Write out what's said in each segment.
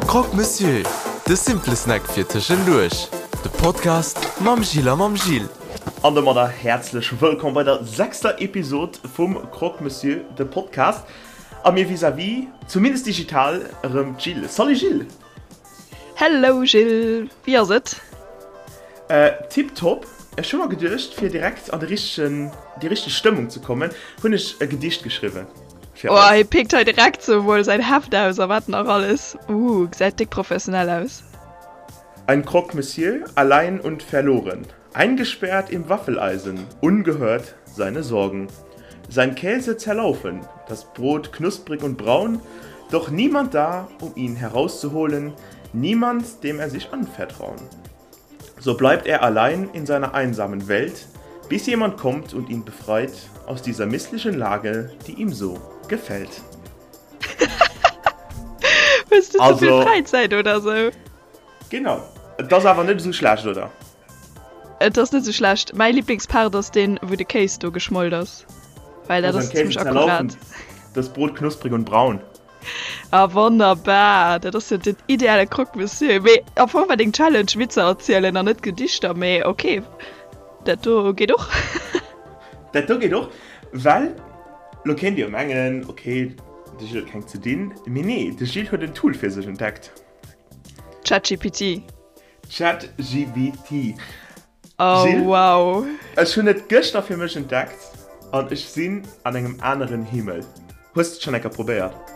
Croque Monsieur, de simple Snack fir tëschenduerch. De Podcast mam Gilles a mam Gilles. An domadder häerzlech wëllkomm bei der sechster Episod vum Croque Monsieur, de Podcast. A mir vis-à-vis, zumindest digital, erëm d'Jil. Salut Gilles! Hello Gilles, wéi ass et? Tiptop. Ech hu mer geduecht, fir direkt an de richtegen, déi richteg Stëmmung ze kommen, hunn ech e Gedicht geschriwwen fir Oh, eis. hie pickt hei direkt sou mol säin Heft aus a wat nach alles. Ooh, gesäit déck professionell aus. Ein Croque Monsieur, allein und verloren, eingesperrt im Waffeleisen, ungehört seine Sorgen. Sein Käse zerlaufen, das Brot knusprig und braun, doch niemand da, um ihn herauszuholen, niemand, dem er sich anvertrauen. So bleibt er allein in seiner einsamen Welt, bis jemand kommt und ihn befreit aus dieser misslichen Lage, die ihm so gefällt. Hues du ze vill Fräizäit oder sou? Genau. Et ass awer net esou schlecht, oder? Et ass net esou schlecht. Mäi Liblingspart ass deen, wou de Kéis do geschmolt ass, well dat ass zimmlech akkurat. Das Brot knusprig und braun. Ah wonnerbar, dat ass jo den ideale Croque Monsieur. Mee am Fong war deng Challenge Witzer erzielen an net Gedichter, mee ok, dat do geet och. Dat do geet och, well lo kéint Dir jo mengen, ok, de Gilles huet keng ze dinn, mee nee, de Gilles huet en Tool fir sech entdeckt. ChatGPT. ChatGPT. Oh Gilles, wow. Ech hunn et gëschter fir mech entdeckt an ech sinn an engem aneren Himmel. Hues de et schonn eng Kéier probéiert?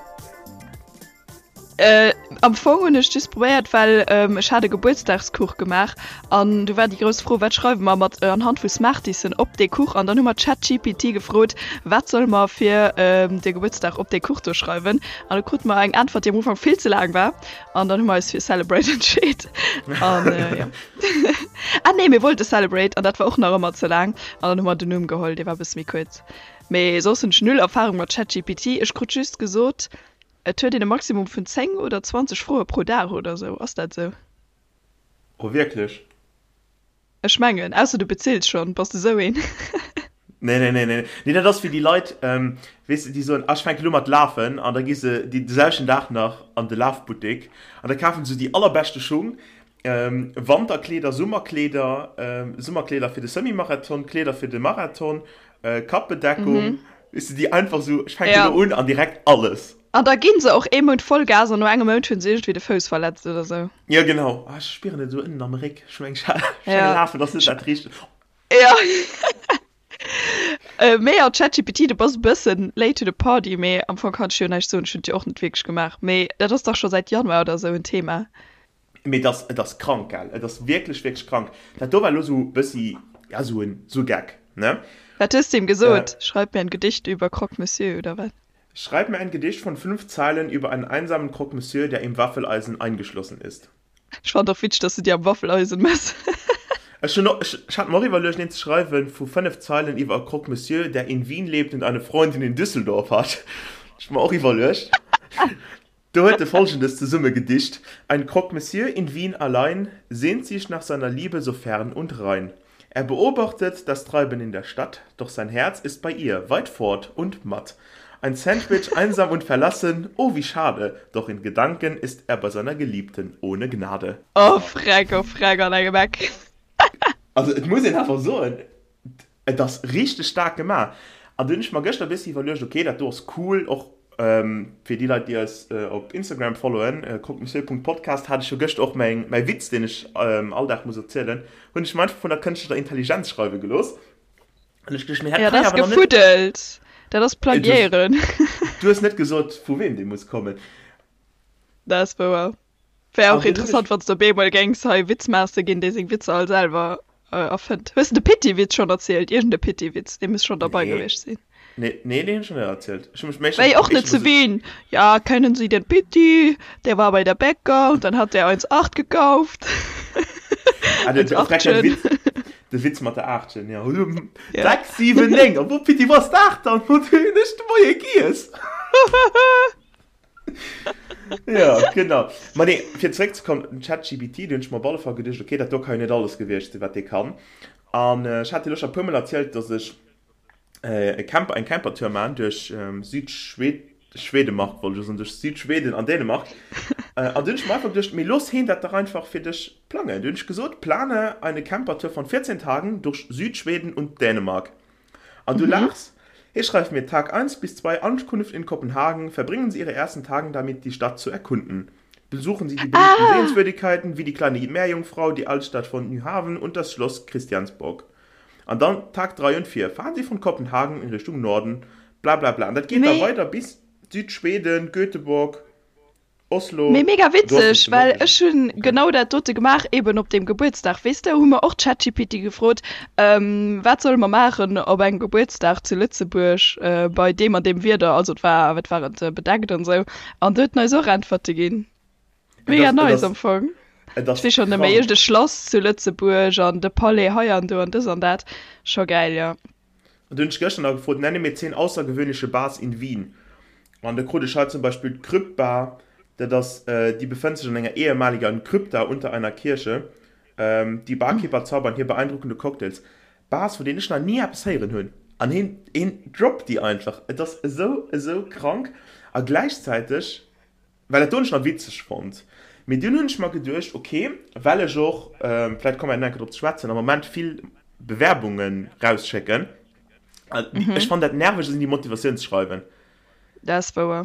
Äh, am Fong hunn ech just probéiert, well ähm, ech hat e Gebuertsdagskuch gemaach an du war déi grouss Fro, wat schreiwe mer mat äh, anhand vu Smartiesen op dee Kuch? An dann hu mer ChatGPT gefrot, wat solle mer fir ähm, de Gebuertsdag op dee Kuch do schreiwen? An du krute mer eng Äntwert, déi am Ufank vill ze laang war. An dann hu mer eis fir Celebrate entscheet. An äh, ja. ah nee, mir wollte Celebrate an dat war och nach ëmmer ze laang. An dann hu mer den Numm geholl, dee war e bësse méi kuerz. Mee soss hunn ech null Erfarung mat ChatGPT. Ech krut just gesot, et huet een e Maximum vun 10 oder 20 Froe pro Dag oder sou. Ass dat sou? Oh wierklech? Ech mengen, ausser du bezills schonn, bass de sou een? Nee, nee, nee, nee. Nee, dat ass wéi déi Leit, weess de, déi soen, ah, ech fänke lo mat lafen, an da gi se dee selwechten Dag nach an de Lafbuttek an da kafen se déi allerbeschte Schung, Wanterkleeder, Summerkleeder, Summerkleeder fir de Semi-Marathon, Kleeder fir de Marathon, Kappbedeckung, weess de, déi einfach sou, ech fänke lo un an direkt alles. An da ginn se och ee Mount Vollgas an no engem Mount hunn se iergendwéi de Fouss verletzt oder sou. Jo genau, ah ech spieren et esou ënnen am Réck, ech mengen ech mengen lafen ass net dat richtegt. Jo mee jo ChatGPT du bass e bëssen late to the party, mee am Fong kann ech jo näischt soen, ech hunn et jo och net wierklech gemaach, mee dat ass dach scho säit Januar oder sou en Thema. Mee et ass, et ass krank gell, et ass wierklech wierklech krank. Dat do war elo sou bëssi, ja sou en sou Geck ne. Wat hues de him gesot? Schreib mir ein Gedicht über Croque Monsieur oder wat? Schreib mir ein Gedicht von 5 Zeilen über einen einsamen Croque Monsieur, der im Waffeleisen eingeschlossen ist. Ech fannen och witzeg, dass du déi am Waffeleisen mess. Ech hunn och, ech hat mer och iwwerluecht een ze schreiwen vu 5 Zeilen iwwer e Croque Monsieur, der in Wien lebt und eine Freundin in Düsseldorf hat. Ech mer och iwwerluecht. Do huet e Folgendes zesumme gedicht, Ein Croque Monsieur in Wien allein sehnt sich nach seiner Liebe so fern und rein. Er beobachtet das Treiben in der Stadt, doch sein Herz ist bei ihr, weit fort und matt. Ein Sandwich einsam und verlassen, oh wie schade, doch in Gedanken ist er bei seiner Geliebten ohne Gnade. Oh Freck, oh Freck an engem Eck. Also et muss een awer soen, Et ass richteg staark gemaach. An du hunn ech mer gëschter e bëssi iwwerluecht, ok, dat do ass cool, och fir déi Leit, déi eis op Instagram followen, croquemessieur.podcast, hat ech jo gëschter och mäin, mäi Witz, deen ech all Dag muss erzielen, hunn ech mer einfach vun der kënschtlecher Intelligenz schreiwe gelooss. An ech geduecht, mee dat kann jo awer nach net. Ja, dat ass gefuddelt. Dat ass Plagiéieren. Du hues net gesot, vu weem dee muss kommen. Dat ass wouer. Wär och interessant, wann s de op eemol géings hei Witzmaster ginn, dee seng Witzer all selwer erfënnt. Hues de de Pitti-Witz schonn erzielt? Iergend e Pitti-Witz, dee muss schonn derbei gewiescht sinn. Nee, nee, deen hunn ech nach net erzielt. Ech hu mech méi. War jo och net zu Wien. Ja, kennen Sie den Pitti? Der war bei der Bäcker und dann hat der eins 8 gekauft. Ah, de, de, Witz, de Witz mat der Aachtchen, ja. 6, 7, 9, a wo Pitti, wou ass d'Aacht dann? Wou hunn ech de Moie giess? Ja, genau. Ma nee, fir zeréckzekommen, den ChatGPT, do hunn ech mer op alle Fall geduecht, okay, dat do ka jo net alles gewiescht sinn, wat dee kann. An ech hat dir elo scho e puermol erzielt, dass ech e Camper, eng Campertour maachen duerch Südschwed, Schwedemark wollt ech elo soen, duerch Südschweden an Dänemark. An du hunn ech mer einfach geduecht, mee looss heen dat dach einfach fir dech plangen. Du hunn ech gesot, Plane eine Campertour von 14 Tagen durch Südschweden und Dänemark. An du laachs, hee schreift mir, Tag 1 bis 2 Ankunft in Kopenhagen, verbringen Sie Ihre ersten Tagen damit, die Stadt zu erkunden. Besuchen Sie die beliebten Sehenswürdigkeiten wie die kleine Meerjungfrau, die Altstadt von Nyhavn und das Schloss Christiansborg. An dann Tag 3 und 4, fahren Sie von Kopenhagen in Richtung Norden, bla bla bla. An dat geet da weider bis Südschweden, Göteborg, Oslo. Mee mega witzeg, well ech hunn genau dat dote gemaach, eben op deem Gebuertsdag, weess de, hu mer och ChatGPT gefrot, wat solle mer maachen op engem Gebuertsdag zu Lëtzebuerg bei deem an deem Wieder, also et war, wat war et, bedeckt an esou, an do huet en eis och Äntwerte ginn. Mega nice am Fong. Ech weess schonn net méi, iergend e Schlass zu Lëtzebuerg an de Palais hei an do an dës an dat, scho gäil, jo. An du hunn ech gëschter nach gefrot, Nenne mir 10 außergewöhnliche Bars in Wien. An da krut ech hei zum Beispill d'Krypt Bar, dat ass, déi befënnt sech an enger ehemaliger Krypta unter einer Kirche. Die Barkeeper zaubern hier beeindruckende Cocktails. Bars, vun deenen ech nach ni eppes héieren hunn. An hien, hien droppt déi einfach. Et ass esou, esou krank. A gläichzäiteg. Well dat do hunn ech nach witzeg fonnt. Mee dunn hunn ech mer geduecht, ok, well ech och, vläicht komme mer nach eng Kéier drop ze schwätzen, am Moment vill Bewerbunge rausschécken. Ech fannen dat nerveg, esou déi Motivatiounsschreiwen. Dat ass wouer.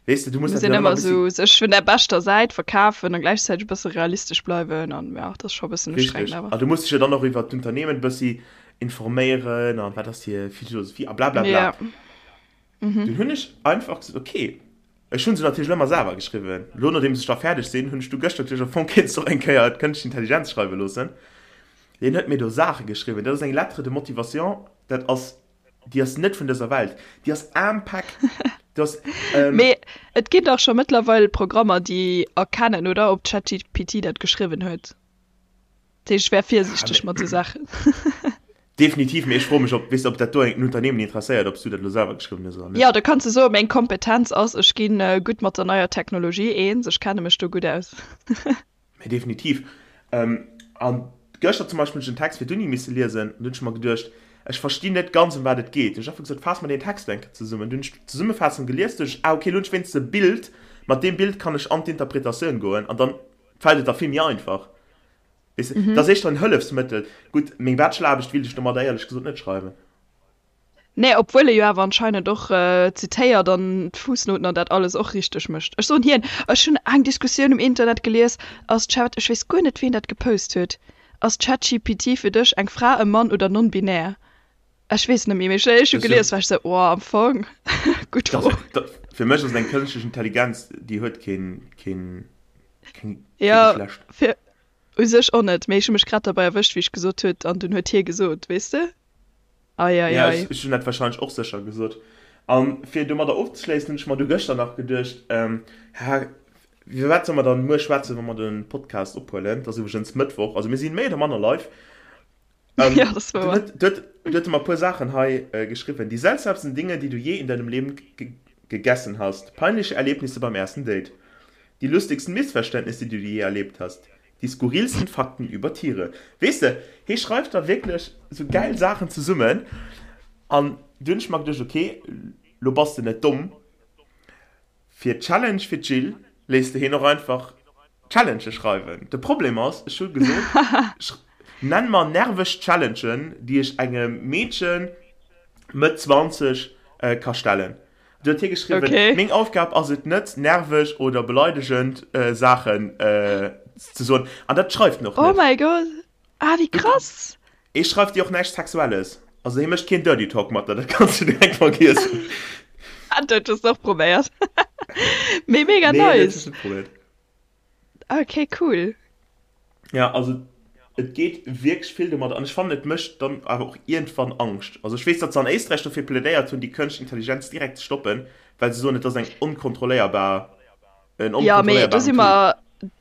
Weess de, du muss dat jo ëmmer e bëssi. Muss een ëmmer esou sech vun der beschter Säit verkafen a gläichzäiteg e bësse realistesch bleiwen an, jo, dat ass scho e bëssen ustrengend awer. Richtig. A du muss dech jo dann och iwwert d'Unternehmen e bëssi informéieren an wat ass hir Philosophie a blablabla. Jo. Dunn hunn ech einfach gesot, ok, ech hu se natierlech ëmmer selwer geschriwwen. Elo nodeems ech da fäerdeg sinn, hunn ech du gëschter natierlech am Fong kéints de och eng Kéier d'Kënschtlech Intelligenz schreiwe loossen. Deen huet mir do Saache geschriwwen, dat ass eng Lettre de motivation, dat ass, déi ass net vun dëser Welt, déi ass ampack. Do ass, ähm. Mee et ginn dach scho mëttlerweil Programmer, déi erkennen, oder, ob ChatGPT dat geschriwwen huet. Dat heescht, ech wär virsiichteg mat esou Saachen. Definitiv, mee ech froe mech, ob, weess de, ob dat do en Unternehmen interesséiert, ob s du dat elo selwer geschriwwen hues oder net. Jo, da kanns de soen, meng Kompetenz ass, ech gi gutt mat der neier Technologie eens, ech kenne mech do gutt aus. Mee definitiv. A gëschter zum Beispill hunn ech en Text fir d'Uni misse liesen an du hunn ech mer geduecht, ech verstinn net ganz, ëm wat et geet. Hunn ech einfach gesot, faass mer deen Text eng Kéier zesummen. Du hunn ech d'Zesummefaassung gelies, duecht ech, ah okay, elo hunn ech wéinstens e Bild, mat deem Bild kann ech an d'Interpretatioun goen an dann fält et der vill méi einfach. Weess de, dat ass éischter en Hëllefsmëttel. Gutt, meng Bachelor-Aarbecht wéilt ech domadder éierlech gesot net schreiwen. Nee, obwuel e jo awer anscheinend och zitéiert an d'Fuussnouten an dat alles och richteg mécht. Ech soen hien, ech hunn eng Diskussioun um Internet gelies, ass Chat, ech weess guer net ween dat gepost huet, ass ChatGPT fir dech eng Fra, e Mann oder non-binär? Ech weess net méi, mee ech hu gelies, war ech sou, oh, am Fong, gutt Fro. Fir mech ass et eng kënschtlech Intelligenz, déi huet keen, keen, keng, kee Geschlecht. Jo, fir u sech och net, mee ech hu mech grad derbei erwëscht, wéi ech gesot huet, an dunn huet hie gesot, weess de? Ei, ei, Ja, ei. ech hunn dat warscheinlech och sécher gesot. A fir domadder ofzeschléissen, hunn ech mer du gëschter nach geduecht, ha, iwwer wat solle mer dann muer schwätzen, wa mer de Podcast ophuelen? Et ass iwwregens Mëttwoch, also mir sinn méi oder manner live. Ähm, Ja, das war du huet, du huet, du huet mer e puer Saachen hei äh, geschriwwen. Die seltsamsten Dinge, die du je in deinem Leben ge gegessen hast. Peinliche Erlebnisse beim ersten Date. Die lustigsten Missverständnisse, die du je erlebt hast. Die skurrilsten Fakten über Tiere. Weess de, hie schreift da wierklech sou gäil Saachen zesummen. An du hunn ech mer geduecht, okay, lo bass de net domm. Fir d'Challenge fir d'Jill léisst de hien och einfach Challengë schreiwen. De Problem ass, ech hu gesot, nenn mer nerveg Challengen, déi ech engem Meedche Mëtt 20 ka stellen. Du huet hie geschriwwen, Okay. Meng Aufgab ass et net, nerveg oder beleidegend Saachen ze soen. An dat schreift en och Oh net. mäi Gott, ah wéi krass! Hie schreift dir och näischt Sexuelles. Also hie mécht keen Dirty Talk mat der, dat kanns du direkt vergiessen. Dat hues de och probéiert. Mee mega Nee, dat nice! hues net probéiert. Okay, cool. Ja, also et geet wierklech vill domadder an ech fannen et mécht dann awer och iergendwann Angscht. Also ech weess, datt se an Éisträich dofir plädéiert hunn, déi kënschtlech Intelligenz direkt ze stoppen, well se soen, et ass eng onkontrolléierbar, en Ja, mee do onkontrolléierbaren si Tool. mer,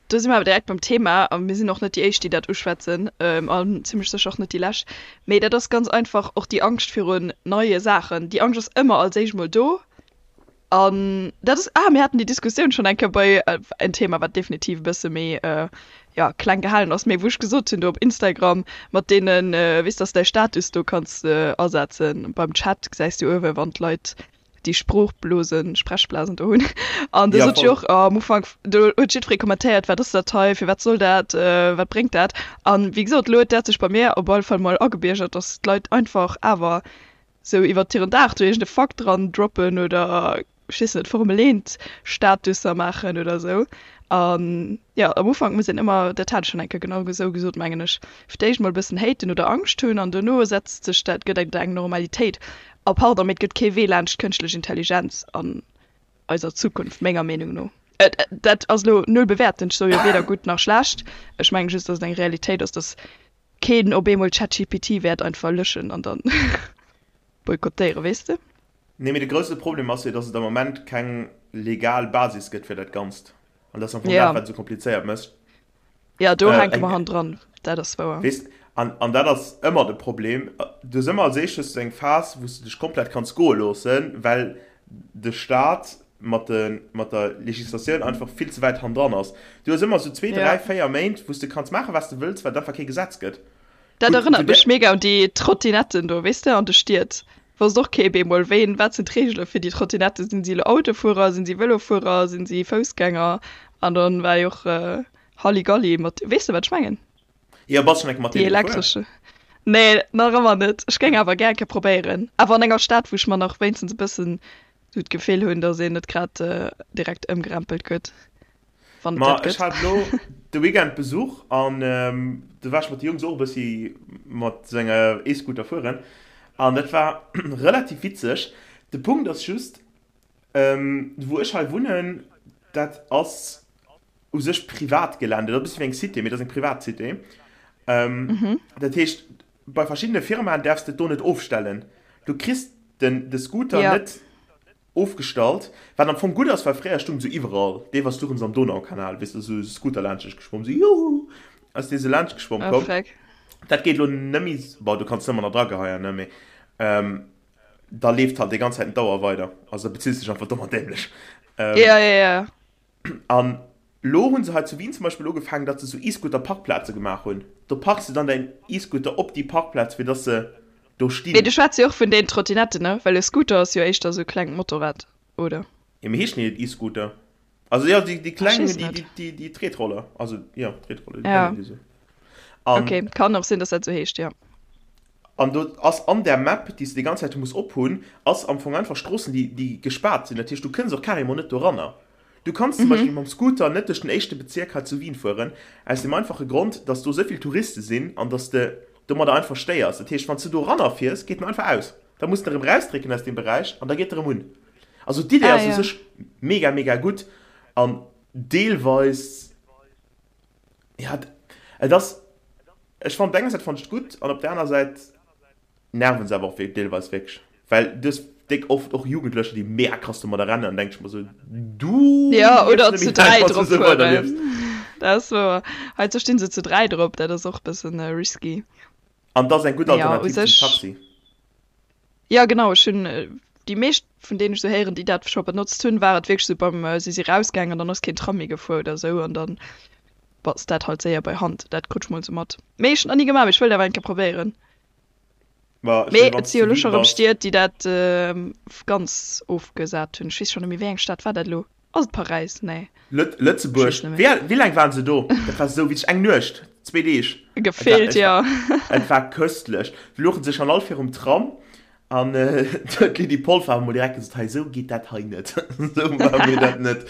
do si mer awer direkt beim Thema a mir sinn och net déi éischt, déi dat uschwätzen an zimmlech sécher och net déi lescht. Mee dat ass ganz einfach och déi Angscht virun neie Saachen. Déi Angscht ass ëmmer als éischt mol do an dat ass, ah, mir haten déi Diskussioun schonn eng Kéier bei en Thema, wat definitiv e bësse méi, jo, kleng gehalen ass, mee wou ech gesot hunn do op Instagram mat deenen, weess, dass de däi Status do kanns asetzen beim Chat, gesäis du uewe wann d'Leit. Déi Sproochblosen, Sprechblasen do hunn. An do sot ech och am Ufank, do huet jiddweree kommentéiert, wat ass dat hei, firwat soll dat, wat bréngt dat? An wéi gesot, elo huet dat sech bei mir op alle Fall mol agebiergert, datt d'Leit einfach awer sou iwwert hiren Dag do iergend e Fakt dran droppen oder ech weess net, Formel 1 Statusser maachen oder sou. An jo, am Ufank muss een ëmmer, dat hat ech schonn eng Kéier genau esou gesot, mengen ech, fir d'éischt mol e bëssen haten oder Angscht hunn an dono setzt sech dat, gëtt et eng Normalitéit. A pardon, mee et gëtt kee Wee laanscht kënschtlech Intelligenz an eiser Zukunft, menger Meenung no. Dat ass elo null bewäertend, ech soe jo weder gutt nach schlecht, ech mengen just, datt et eng Realitéit ass, datt keen op eemol ChatGPT wäert einfach löschen an dann boykottéieren, weess de? Nee, mee de grousse Problem ass jo, datt et am Moment keng legal Basis gëtt fir dat Ganzt. An dat ass am Fong dat, wat et esou komplizéiert mécht. Ja, do hänke mer hannendran, dat ass wouer. Weess, an, an dat ass ëmmer de Problem. Du hues ëmmer als éischt hues du eng Phas, wou s du dech komplett kanns goe loossen, well de Staat mat de, mat der Legislatioun einfach vill ze wäit hannendran ass. Du hues ëmmer esou zwee, dräi, véier Méint, wou s du kanns maachen, wat s du wëlls, well et einfach kee Gesetz gëtt. Dat erënnert mech mega un déi Trottinetten do, weess de, an de Stied. Wosst och kee bemol, wéi, wat sinn d'Reegele fir déi Trottinetten? Sinn si elo Autofuerer, sinn si Vëlofuerer, sinn si Foussgänger? An dann war jo och Halligalli mat, weess de wat ech mengen? Jo, bass schon eng Kéier mat deene gefuer? Déi elektresche. Nee, nach ëmmer net. Ech géing awer gär eng Kéier probéieren. Awer an enger Stad, wou ech mer nach wéinstens e bëssen esou d'Gefill hunn, datt een net grad direkt ëmgerempelt gëtt. Wann et Ma dat ech gëtt. hat elo de Weekend Besuch an do war ech mat de Jungs och e bëssi mat sou enger E-Scooter fueren an dat war relativ witzeg. De Punkt ass just, wou ech hei wunnen, dat ass u sech Privatgelände, dat ass e bëssi wéi eng Cité, mee dat ass eng privat Cité. Dat heescht, bei verschiddene Firmaen däerfs de et do net ofstellen. Du kriss den de Scooter net Ofgestallt, wat am Fong gutt ass, well fréier stung se iwwerall, deelweis stoungen se am Donaukanal, weess de, esou Scooter laanscht geschwomm, esou juhu, ass dee sou laanscht geschwomm komm. Dat geet elo net méi, bon, du kanns ëmmer nach drageheien, ne, mee da leeft halt déi ganz Zäit d'Auer weider, also da bezills dech einfach domm an dämlech. Ja, ja, ja. An lo hunn se hei zu Wien zum Beispill ugefaangen, datt se sou E-Scooter-Parkplaze gemaach hunn. Do parks de dann däin E-Scooter op déi Parkplaz, fir datt se do stinn. Mee du schwätz jo och vun den Trottinetten, ne? Well e Scooter ass jo éischter sou e klengt Motorrad, oder? Jo, mee heeschen déi net E-Scooter? Also jo, déi, déi kleng, déi, déi, déi Tretroller. Also jo, Tretroller, déi nennen déi sou. An. Ok, kann och sinn, datt dat sou heescht, jo. An do ass an där Map, déi s de déi ganz Zäit muss ophunn, ass am Fong einfach Stroossen, déi, déi gespaart sinn. Dat heescht, du kënns och carrément net doranner. Du kanns zum Beispill mam Scooter net duerch den éischte Bezierk hei zu Wien fueren, aus dem einfache Grond, dass do esou vill Touriste sinn an dass de domadder einfach stéiers. Dat heescht, wann s du doranner fiers, geet en einfach aus. Da muss de erëm rausdrécken aus deem Beräich an da geet e erëm un. Also d'Idee ass u sech mega, mega gutt an deelweis, ja, et ass, ech fannen op der enger Säit fannen ech et gutt an op der aner Säit, Nerven se awer och deelweis wierklech, well du hues déck oft och Jugendlecher, déi mega krass domadder rennen an denk ech mer sou, du Ja, oder zu 3 drop fueren. Dat ass wouer. Heizou stinn se zu 3 drop, dat ass och e bëssen risky. An dat ass eng gutt Alternativ zum Taxi. Ja genau, ech hunn déi meescht vun deenen ech sou héieren, déi dat scho benotzt hunn, war et wierklech sou beim, si si rausgaangen an dann ass keen Tram méi gefuer oder sou an dann bass dat halt séier bei Hand. Dat krut ech mol sou mat. Mee ech hunn nach ni gemaach, mee ech wëllt awer eng Kéier probéieren. Mee et si jo elo scho rëm Stied, déi dat ganz ofgesat hunn. Ech weess scho net méi, wéi eng Stad war dat elo? Ass et Paräis? Nee. Lëtzebuerg. Wéi laang waren se do? Dat war esou witzeg. Eng Nuecht, zwee Deeg. Gefillt, jo. Et war köstlech. Se louchen sech an all virum Tram an d'Lydie Polfer hat emol direkt gesot, hei esou geet dat hei net. Esou maache mir dat net.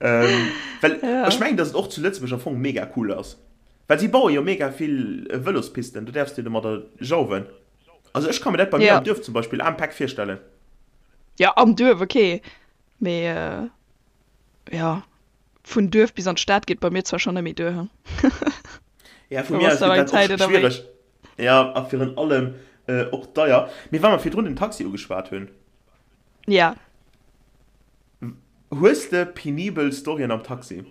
Well ech mengen, datt et och zu Lëtzebuerg am Fong mega cool ass. Well si baue jo mega vill Vëlospisten, do däerfs de domadder jauwen. Also ech ka mir dat bei mir am Duerf zum Beispill am Päck virstellen. Jo, am Duerf ok, mee jo, vun Duerf bis an d'Stad geet bei mir zwar schonn net méi duer, he. Ja, vu mir aus gëtt dat och schwiereg. Ja, a virun allem och deier. Mee wa mer virdrun den Taxi ugeschwat hunn. Ja. Hues de penibel Storyen am Taxi?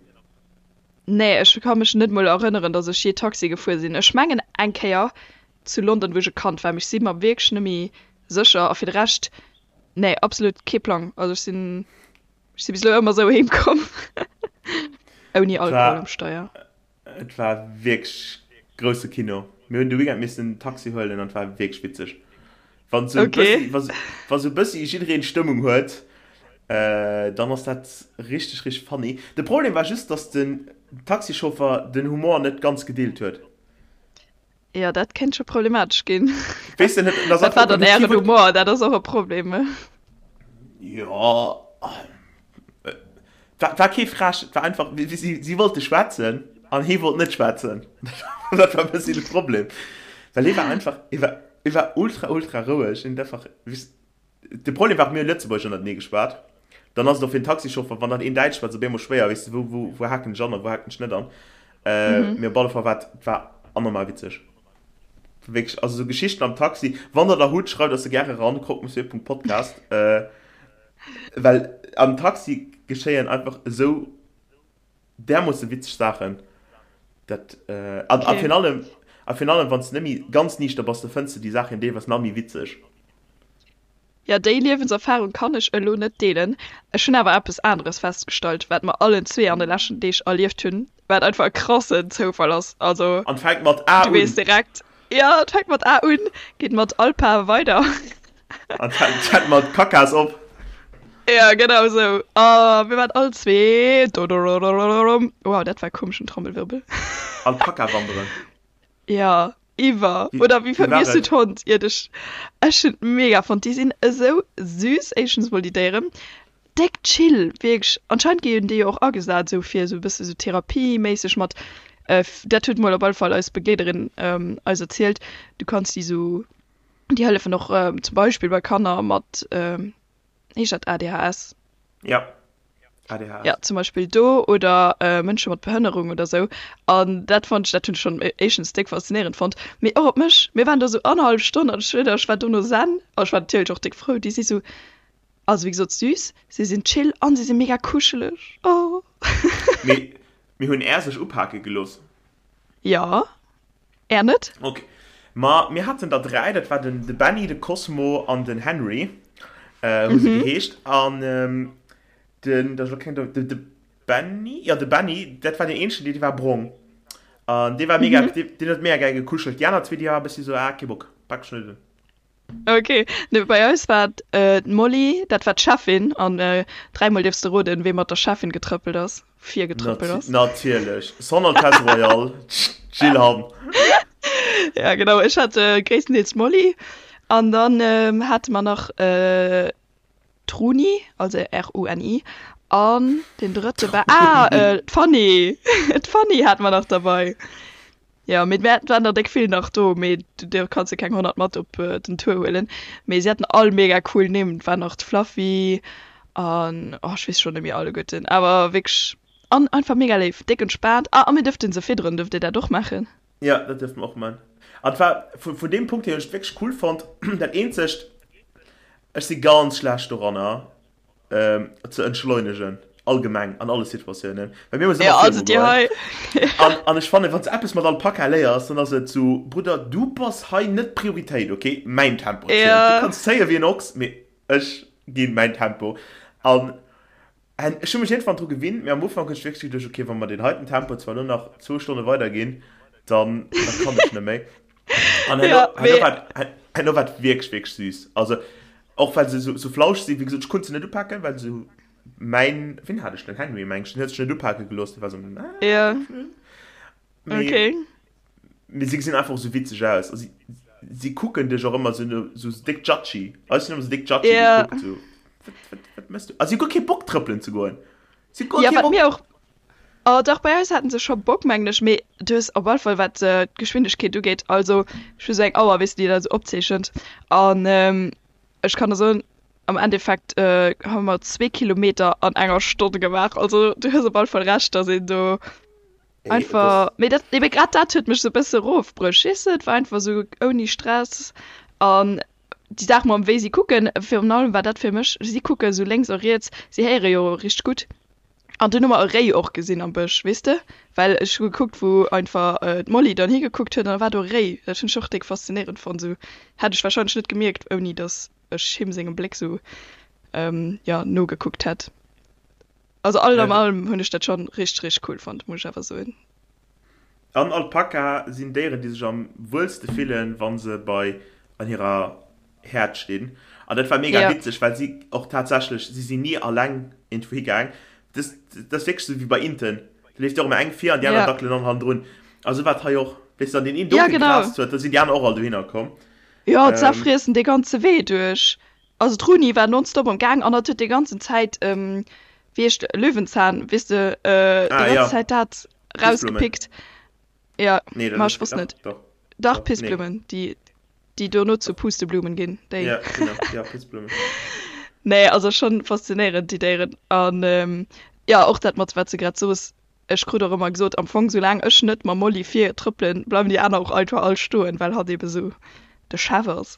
Nee, ech ka mech net mol erënneren, dass ech jee Taxi gefuer sinn. Ech mengen eng Kéier zu London, wou ech e Kand war, mee ech si mer wierklech net méi sécher. A fir de Rescht, nee, absolut kee Plang. Also ech sinn, ech si bis elo ëmmer esou heem komm, ouni Alkohol um Steier. Et war wierklech grousse Kino. Mir hunn de Weekend missen Taxi huelen an et war wierklech witzeg. Wann sou okay. bëssi, wa sou bëssi jiddereen Stëmmung huet, äh, dann ass dat richteg, richteg funny. De Problem war just, dass den Taxichauffer den Humor net ganz gedeelt huet. Ja, dat kéint scho problematesch ginn. Weess de net, dat war dann ären Humor, dat ass och e Problem. Ja, war, war kee frech, et war einfach, si, si wollte schwätzen an hee wollt net schwätzen. Dat war e bëssi de Problem. Well hee war einfach, hee war, hee war ultra, ultra roueg. Hien huet einfach, weess, de Problem war och, mir hu Lëtzebuergesch ënnertenee geschwat. Dann ass et och fir den Taxichauffer, wann dann een Däitsch schwätzt, op eemol schwéier, weess de, wou, wou, wou haken ech an a wou haken ech net an. Mee op alle Fall war et, et war anormal witzeg. Wierklech, also sou Geschichten am Taxi, wann der der hutt, schreift eis se gäre ran, croquemonsieurpunktpodcast. Well am Taxi geschéien einfach esou därmoosse witzeg Saachen, dat an a virun allem a virun allem wann s de net méi ganz niichter bass, da fënns de déi Saachen deelweis nach méi witzeg. Jo, déi Liewenserfarung kann ech elo net deelen. Ech hunn awer eppes aneres festgestallt, wat mer allen zwee an de leschten Deeg erlieft hunn, wat einfach e krassen Zoufall ass. Also, An fänkt mat A du weess un. direkt, jo, et fänkt mat A un, geet mat Alpa weider. An fänkt mat Kakas op. Ja, genau esou. A mir waren all zwee, dodorodorodom, wow, dat war e komeschen Trommelwirbel. Alpaka wanderen. Ja, iwwer. Oder wéi Wéi war hues du et? d'Hond? Iert ech, ech hunn et mega fonnt. Déi sinn esou süß, éischtens mol déi Déieren. Déck chill, wierklech. Anscheinend ginn déi jo och agesat esou fir esou e bësse sou therapieméisseg mat, dat huet mol op alle Fall eis Begleederin eis erzielt, du kanns déi sou, déi hëllefen och zum Beispill bei Kanner mat, heescht dat ADHS? Ja, ADHS. Ja, zum Beispill do oder Mënsche mat Behënnerung oder sou. An dat fonnt ech, dat hunn ech schonn éischtens déck faszinéierend fonnt, mee och op mech. Mir waren do sou annerhallef Stonn an ech schwéier der, ech war dono zen. A ech war natierlech och déck frou. Déi si sou, also wéi gesot süß, si sinn chill an si si mega kuscheleg. Oh. Mee mir hunn Är sech upake gelooss. Jo. Är net? Ok. Ma mir haten der 3, dat war den de Benny, de Cosmo an den Henry, hu se geheescht. An den, dat ass elo keng, de, de Benny, jo de Benny, dat war deen eenzegen, dee war brong. An dee war mega, dee, deen huet mega gäi gekuschelt. Déi aner zwee, déi war e bëssi sou, ah, kee Bock, pak ech net un. Ok, nee bei eis war et d'Molly, dat war d'Cheffin an dräimol dierfs de roden, wee mat der Cheffin getrëppelt ass, virgetrëppelt ass. Natierlech, Son Altesse Royale, d'Jill Hamm. Ja genau, ech hat gréisstendeels d'Molly an dann hate mer nach d'Runi, also R-U-N-I, an deen drëtte war, ah, d'Fanny, d'Fanny hate mer nach derbei. Jo, mee et waren der déck vill nach do, mee do kanns de keng 100 mat op den Tour huelen. Mee si haten all mega cool Nimm, et war nach d'Fluffy an oh ech weess schonn net méi alleguerten, awer wierklech an einfach mega léif, déck entspaant. Ah a mir duerften se fidderen, duerft dir dat och maachen? Jo, dat duerfte mer och man. An et war vun deem Punkt hier hunn ech et wierklech cool fonnt. Dat eenzegt, ech si ganz schlecht doranner, ze entschleunegen, allgemeng an alle Situatiounen. Well mir muss ëmmer also dir hei. An, an ech fannen, wann s eppes mat Alpaka léiers, dann ass et sou, Brudder, du bass hei net d'Prioritéit, okay? Mäin Tempo zielt. Ja. Du kanns zéie wéi en Ochs, mee ech ginn mäin Tempo. An ech hu mech iergendwann dru gewinnt, mee am Ufank hunn ech wierklech geduecht, okay, wa mer deen heiten Tempo zwar elo nach zwou Stonne weiderginn, dann, dann kann ech net méi. An herno, Ja, herno mee war, herno war et wierklech, wierklech süß. Also, och well se sou, sou flauscheg sinn, wéi gesot, ech konnt se net upaken, well se mäin, wien hat ech denn? Henry, meng ech, den huet sech net upake gelooss, dee war sou, ah, Ja. Mee, Okay. mee si gesinn einfach och sou witzeg aus. A si, si kucken dech och ëmmer sou, no, sou déck judgy. Eis hunn ëmmer sou déck judgy Ja. gekuckt, sou, wat, wat, wat mëss du? A si hu guer kee Bock trëppelen ze goen. Si hu guer Ja, kee wat Bock. mir och Oh dach, bei eis haten se scho Bock mengen ech, mee du hues op alle Fall wat d'Geschwindegkeet ugeet, also ech hu sou eng Auer weess de déi dat sou opzeechent an ech kann der soen am Endeffekt hu mer zwee Kilometer an enger Stonn gemaach, also du hues op alle Fall Recht, dass een do einfach, mee dat ebe grad dat huet mech sou e bësse rofbruecht, weess de, et war einfach sou ouni Stress an déi Saach mam wéi si kucken, virun allem war dat fir mech, si kucke sou lénks a riets, si héiere jo richteg gutt. An dunn hu mer e Réi och gesinn am Bësch, weess de? Well ech hu gekuckt, wou einfach d'Molly dann higekuckt huet, an da war do e Réi. Dat hunn ech och déck faszinéierend fonnt. Esou hätt ech warscheinlech net gemierkt, ouni datt ech him sengem Bléck esou, jo, nogekuckt hätt. Also all am allem hunn ech dat schonn richteg, richteg cool fonnt, muss ech awer soen. An Alpaka sinn Déieren, déi sech am wuelste fillen, wa se bei an hirer. Häerd stinn. An dat war mega ja. witzeg, well si och tatsächlech, si sinn ni alleng irgendwou higaang. Das, das ass wierklech sou wéi bei Inten. Da leeft jo och ëmmer eng vir an déi aner ja. dackelen dann hannendrun. A sou war et hei och. Weess du, an deen een do ja, genau. gegraast huet, da sinn déi aner och all dohinner komm. Ja, ähm, zerfriessen dee ganze Wee duerch. Also d'Runi war nonstop am Gaang an hat huet déi ganzen Zäit, ähm, wéi heescht Löwenzahn, weess de, äh, déi ah, ganz ja. Zäit dat rausgepickt. Ja, nee, ma ech wosst net. Doch, doch Pissblumen, nee. déi, déi dono zu Pusteblumen ginn. Déi. Ja, genau. Ja, Pissblumen. Nee, also schon faszinéierend, déi Déieren. An ähm, ja, och dat mat, wat s de grad soos, ech krut och ëmmer gesot, am Fong, soulaang ech net mam Molly vir trëppelen, bleiwen déi aner och einfach all stoen, well hatt ebe sou de Chef ass.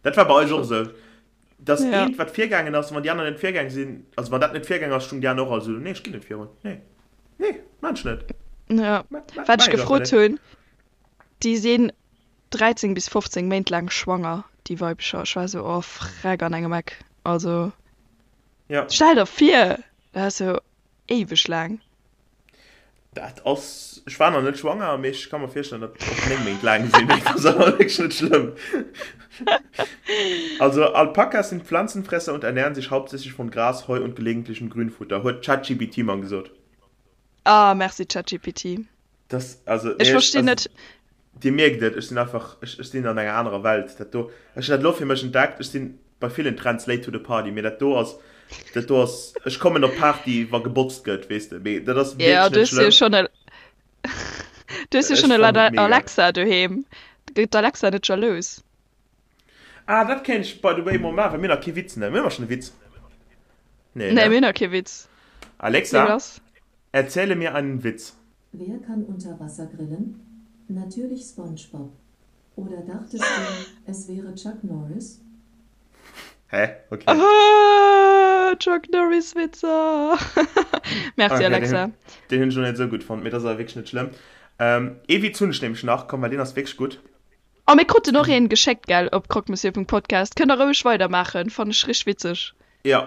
Dat war bei eis och esou. Dass ja. eent, wat virgaangen ass, wann déi aner net virgaang sinn, also wann dat net virgaang ass, stung déi aner och all sou, nee, ech ginn net virun, nee, nee, maan ech net. Ja, wat ech gefrot hunn, déi sinn 13 bis 15 Méint laang schwanger, déi Weibecher. Ech war sou, oh freck an engem Eck, also ja. Stell der vir, dat ass jo éiweg laang. Dat ass, ech war nach net schwanger, mee ech ka mer virstellen, datt och 9 Méint laang sinn. Dat ass awer wierklech net schlëmm. Also, Alpakas sind Pflanzenfresser und ernähren sich hauptsächlich von Gras, Heu und gelegentlichem Grünfutter, huet ChatGPT mer gesot. Ah, merci ChatGPT. Das, also, Ech verstinn net. Dir mierkt et, ech sinn einfach, ech, ech sinn an enger anerer Welt. Dat do, ech hunn dat elo fir mech entdeckt, ech sinn bei villen Trends late to the party, mee dat do ass, dat do ass, ech kommen op d'Party, wa gebotzt gëtt, weess de, mee dat ass Ja, wierklech du net hues jo schlëmm. schonn e, du hues jo Ech schonn fannen et mega. Alexa doheem. Gëtt d'Alexa net jalous? Ah, dat kéint ech by the way mol maachen, well mir hunn nach kee Witz, ne? Mir hu schonn e Witz. Nee, Nee, ne? mir hunn nach kee Witz. Nee, Alexa, lass. erzähle mir einen Witz. Wer kann unter Wasser grillen? Natürlich SpongeBob. Oder dachtest du, es wäre Chuck Norris? Hä? Okay. Ah, Chuck Norris Witzer. Merci Okay, den, Alexa. den hunn ech lo net esou gutt fonnt, mee dat ass awer wierklech net schlëmm. Ähm, ee Witz hunn ech nämlech nach, komm, well deen ass wierklech gutt. Oh mir kruten och een geschéckt gell op croquemonsieurpunktpodcast. Kënnt der roueg weider maachen, fannen ech richteg witzeg. Jo,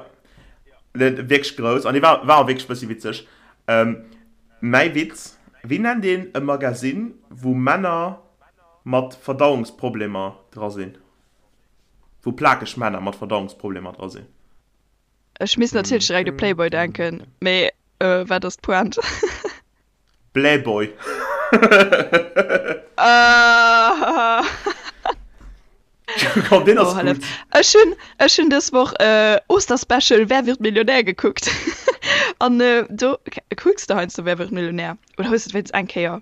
wierklech grouss an dee war war och wierklech bëssi witzeg. Mäi Witz, Wéi nennt een e Magasinn, wou Männer mat Verdauungsproblemer dra sinn? Wou plakeg Männer mat Verdauungsproblemer dra sinn? Ech misst natierlech direkt u Playboy denken, mee wat ass d'Pointe? Blähboy. Komm, deen ass Oh, hallef. gutt. Ech hunn, ech hunn dës Woch äh, Osterspecial Wer wird Millionär gekuckt. An äh, do kucks de heiansdo Wer wird Millionär? Oder hues de et wéinst eng Kéier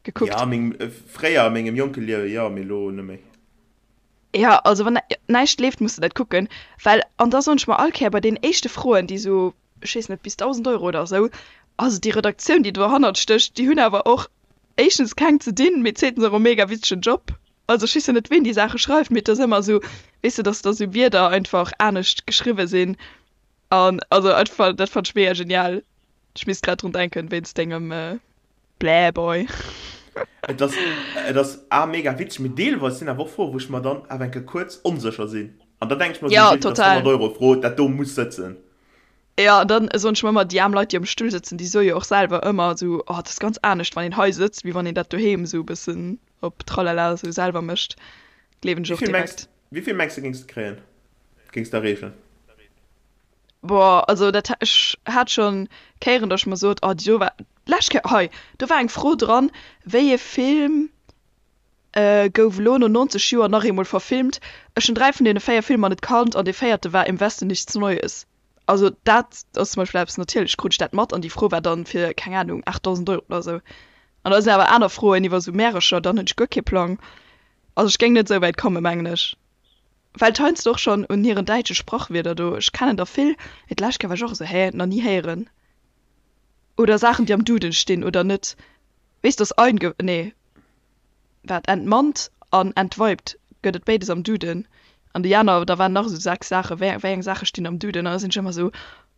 gekuckt? Ja, mengem, äh, fréier a mengem jonke Liewe, jo, mee lo net méi. Ja, also wann näischt leeft, muss de dat kucken. Well, an da soen ech mer all Kéier bei deenen éischte Froen, déi sou ech weess net, bis 1.000 Euro oder esou. Also déi Redaktioun, déi dohannert stécht, déi hunn awer och éischtens keng ze dinn, mee zweetens och e mega witzegen Job. Also ech weess jo net, ween déi Saache schreift, mee et ass ëmmer esou, weess de, dass da sou Wierder einfach anescht geschriwwe sinn. An also einfach, dat fannt ech mega genial. Ech misst grad drun denken, wéinst dengem Blähboy. Et ass, et ass a mega witzeg, mee deelweis sinn awer och Froen, wou ech mer dann awer eng Kéier kuerz onsécher sinn. An da denke ech mer esou, Ja, Jill, dat ass total. 100 Euro Fro, dat do muss sëtzen. Jo, an dann soen ech mer ëmmer, déi aarm Leit, déi am Stull sëtzen, déi soe jo och selwer ëmmer esou, oh, dat ass ganz anescht, wann een hei sëtzt, wéi wann een dat doheem esou e bëssen op Tralala esou selwer mécht. Gleewen ech Wéi och vill mengs, direkt. wéi vill mengs de géings de kréien, géings de erreechen? Boah, also dat, ech hat schonn Kéieren, datt ech mer sot, oh, déi do war, d'lescht Kéier, hei, do war eng Fro dran, wéi ee Film Gouf elo no 90 Joer nach eemol verfilmt. Ech hunn 3 vun deene 4 Filmer net kannt an dee véierte war Im Westen nichts Neues. Also dat ass zum Beispill eppes, natierlech krut ech dat mat an déi Fro war dann fir, keng Ahnung, 8.000 Euro oder sou. An da sinn awer aner Froen iwwer sou Märercher, dann hunn ech guer kee Plang. Also ech géing net sou wäit kommen, mengen ech. Well et heiansdo och schonn un hiren däitsche Sprachwierder do, ech kennen der vill, mee d'lescht Kéier war ech och esou, hä, nach ni héieren. Oder Saachen déi am Duden stinn oder net. Weess dass einge, nee. Wat entmannt an entweibt gëtt et béides am Duden. An déi aner, da waren nach esou 6 Saachen, wéi wéi eng Saache stinn am Duden? An da sinn ech ëmmer esou,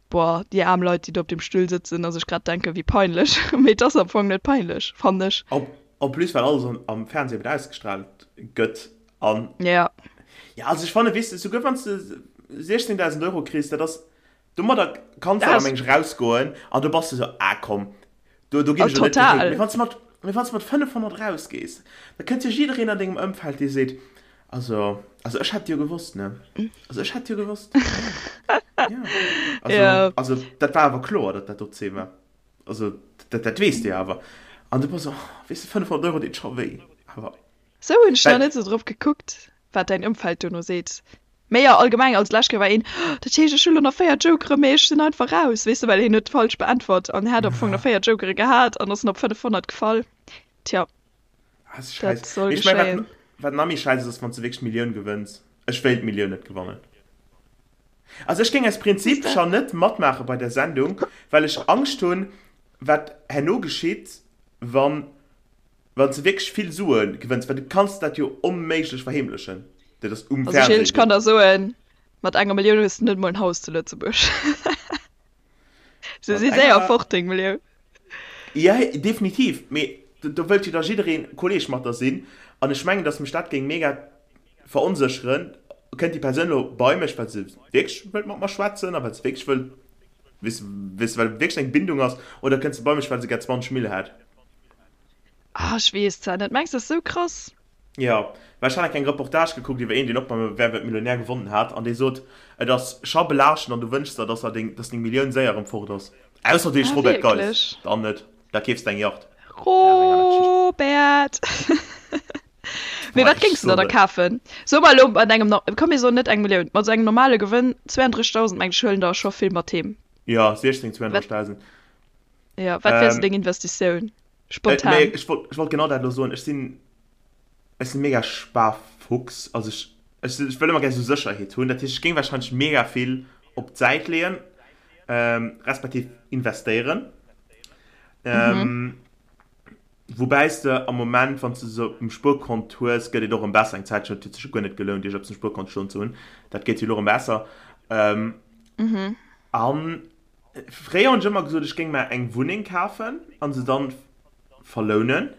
boah, déi aarm Leit, déi do op deem Stull sëtzen a sech grad denken, wéi peinlech. Mee et ass am Fong net peinlech, fannen ech. En en plus, well alles am am Fernseh eben ausgestrahlt gëtt an. Ja. Ja, also ech fannen, weess de, souguer wann s de 16.000 Euro kriss, dat ass, Domadder kanns du awer meng ech rausgoen an do bass du sou, ah komm, do, do ginn ech elo net gehéint. Mee wann s du mat, mee wann s du mat 500 rausgees, da kënnt jo jiddereen an dengem Ëmfeld, dee seet, Also, also ech hätt jo gewosst, ne? Also ech hätt jo gewosst. Ja. Also, ja. also dat war awer kloer, datt dat do C war. Also dat, dat weess de jo awer. An du bass oh, weess de, 500 Euro deet scho wéi. Awer. Sou hunn ech nach net sou drop gekuckt, wat däin Ëmfeld dono seet. Mee jo, allgemeng, also d'lescht Kéier war een, oh, dat heescht ech hu lo nach 4 Jokere, mee ech sinn einfach raus, weess de, well hien huet falsch beäntwert an hat am Fong nach 4 Jokere gehat an ass en op 500 gefall. Tja. Ah, ist scheiße. Dat soll ich mein, wat, wat nach méi scheiße ass, wann du wierklech d'Millioun gewënns. Ech wéilt d'Millioun net gewannen. Also ech géing aus Prinzip schon net matmaache bei der Sendung, well ech Angscht hunn, wat herno geschitt, wann wann s de wierklech vill Sue gewënns, well du kanns dat jo onméiglech verheemlechen. Dat ass um Also Fernseh. Ech kann der soen, mat enger Millioun hues de net mol en Haus zu Lëtzebuerg. Se si séier fort, deng Millioun. Ja, definitiv. Mee do wëllt jo da jiddereen Kolleg mat der sinn. An ech mengen, datt mech dat géing mega veronsécheren. Kënnt déi Persoun elo bei mech, well se wierklech wëllt mat mer schwätzen a well se wierklech wëllt, weess de, well wierklech eng Bindung ass, oder kënnt se bei mech, well se gär 20 Mille hätt? Ah, ech weess zwar net. Mengs de, dat ass esou krass? Jo, well ech hat eng kleng Reportage gekuckt iwwer een, deen och beim Wer wird Millionär gewonnen hat, an dee sot, et ass scho belaaschtend an du wënschs der, dass er deng, dass deng Millioun séier erëm fort ass. Ausser du heesch Ah, Robert Geiss, wierklech? dann net, da keefs de eng Yacht. Ja, dat ass eng aner Geschicht. Robert! Mee Boah, wat ech géings du der soen da et. kafen? So mer elo mat engem, komm mir soen net eng Millioun, mat esou engem normale Gewënn, 32.000 mengen ech huelen der scho vill mat heem. Jo, 16, Wat, 32.000. jo, wat wär sou Ähm, deng Investitioun? Äh, Spontan. nee, ech wollt, ech wollt genau dat elo soen. Ech sinn, ech sinn mega Sparfuchs. Also ech, ech, ech wëll ëmmer gär sou Sécherheet hunn. Dat heescht, ech géing wahrscheinlech mega vill op d'Säit leeën, ähm, respektiv investéieren. Mhm. Ähm, woubäi s de am Moment, wann s de se op dem Spuerkont hues, gëtt et och erëm besser. Eng Zäitchen huet et sech jo guer net gelount, iergendepes um Spuerkont stoen ze hunn. Dat gétt jo elo erëm besser. Ähm, Mhm. an Fréier hunn ech ëmmer gesot, ech géing mer eng Wunneng kafen a se dann verlounen.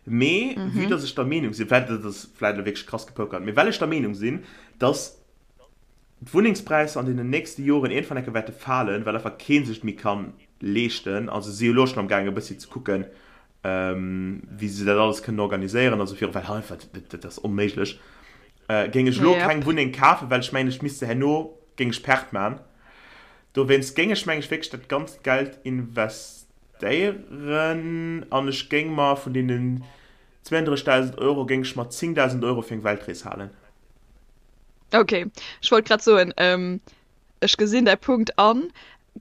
Mee vue dass ech der Meenung sinn, vläicht dat ass vläicht elo wierklech krass gepokert, mee well ech der Meenung sinn, dass d'Wunnengspräisser an deenen nächste Joren iergendwann enke wäerte falen, well einfach kee sech et méi ka leeschten, also si jo elo schonn am gaangen e bëssi ze kucken, wéi se dat alles kënnen organiséieren a sou viru, well einfach dat ass onméiglech, géing ech elo keng Wunneng kafen, well ech mengen, ech misst se herno, géing ech Perte man. Dowéinst géing ech, meng ech, wierklech dat ganzt Geld investéieren an ech géing mer vun deenen 32.000 Euro géing ech mer 10.000 Euro fir eng Weltrees halen. Ok, ech wollt grad soen, ech gesinn däi Punkt an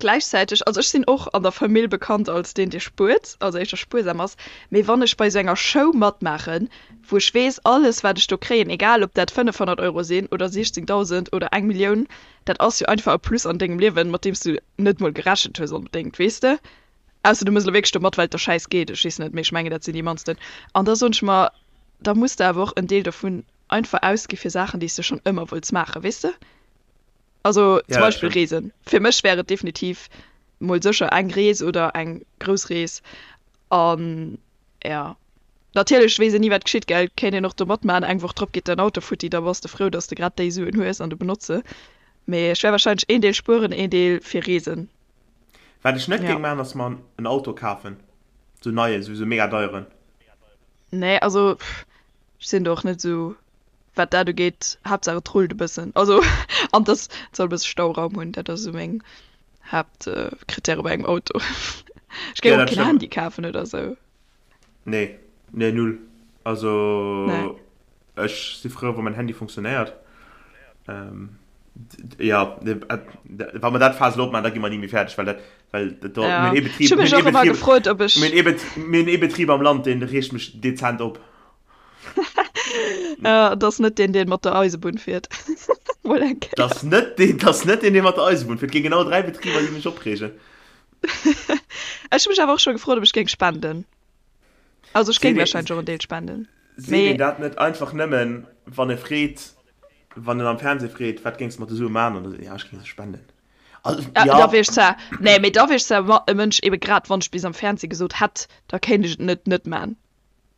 gläichzäiteg, also ech sinn och an der Famill bekannt als deen, dee spuert, also éischter spuersam ass, mee wann ech bei esou enger Show matmaachen, wou ech weess, alles wat ech do kréien, egal ob dat 500 Euro sinn oder 16.000 oder eng Millioun, Dat ass jo einfach e Plus an dengem Liewen, mat deem s du net mol gerechent hues onbedéngt, weess de? Ausser du mëss elo wierklech do mat, well et der schäiss geet, ech weess net, mee ech mengen, dat sinn déi mannsten. An da soen ech mer, da muss de awer och en Deel dovun einfach ausgi fir Saachen, déi s de schonn ëmmer wollts maachen, weess de? Also Ja, zum dat Beispill stimmt. Reesen. Fir mech wär et definitiv mol sécher eng Rees oder eng grouss Rees an Ja. Natierlech weess een ni wat geschitt, gell? Kéint een och do matmaachen, eng Woch drop geet däin Auto futti, da bass de frou, dass de grad déi Suen hues an de benotz se. Mee ech wär wahrscheinlech een Deel spueren, een Deel fir Reesen. Wat ech net Ja. géing maachen ass mer en Auto kafen, sou neien, sou sou mega deieren. Nee, also pff, ech sinn do och net sou wat dat ugeet, Haaptsaach et rullt e bëssen, also an dass et soll e bësse Stauraum hunn, dat ass esou meng Haaptkrittäre bei engem Auto. Ech géing Ja, och dat keen stëmmt. Handy kafen oder sou. Nee, nee null. Also Nee. ech si frou wa mäin Handy funktionéiert. Ähm, ja, wa mer dat Faass elo opmaachen, da gi mer ni méi fäerdeg, well dat, well dat do, Ja. mir hunn ee Ech Betrib, hu mir mech hunn ee och ëmmer Betrib, gefrot, ob ech. mir hunn ee Bet, mir hunn ee Betrib am Land, deen reegt mech dezent op. Ja, et ass net deen, deen mat der Eisebunn fiert. Mol eng Kéier. Dat ass net deen, dat ass net deen, dee mat der Eisebunn fiert. Et gi genau 3 Betriber, déi mech opreegen. Ech hu mech awer och scho gefrot, ob ech géing spenden. Also ech géing Seet wahrscheinlech een, och en Deel spenden. seet Mee een dat net einfach nëmmen, wann e freet, wann en am Fernseh freet, wat géings de mat de Sue maachen? An da seet en, ja, ech géing se spenden. Also, ja, ja. da wier ech zwar, nee, mee da wier ech zwar e Mënsch, ebe grad wann ech bis am Fernseh gesot hätt, da kéint ech et net net man.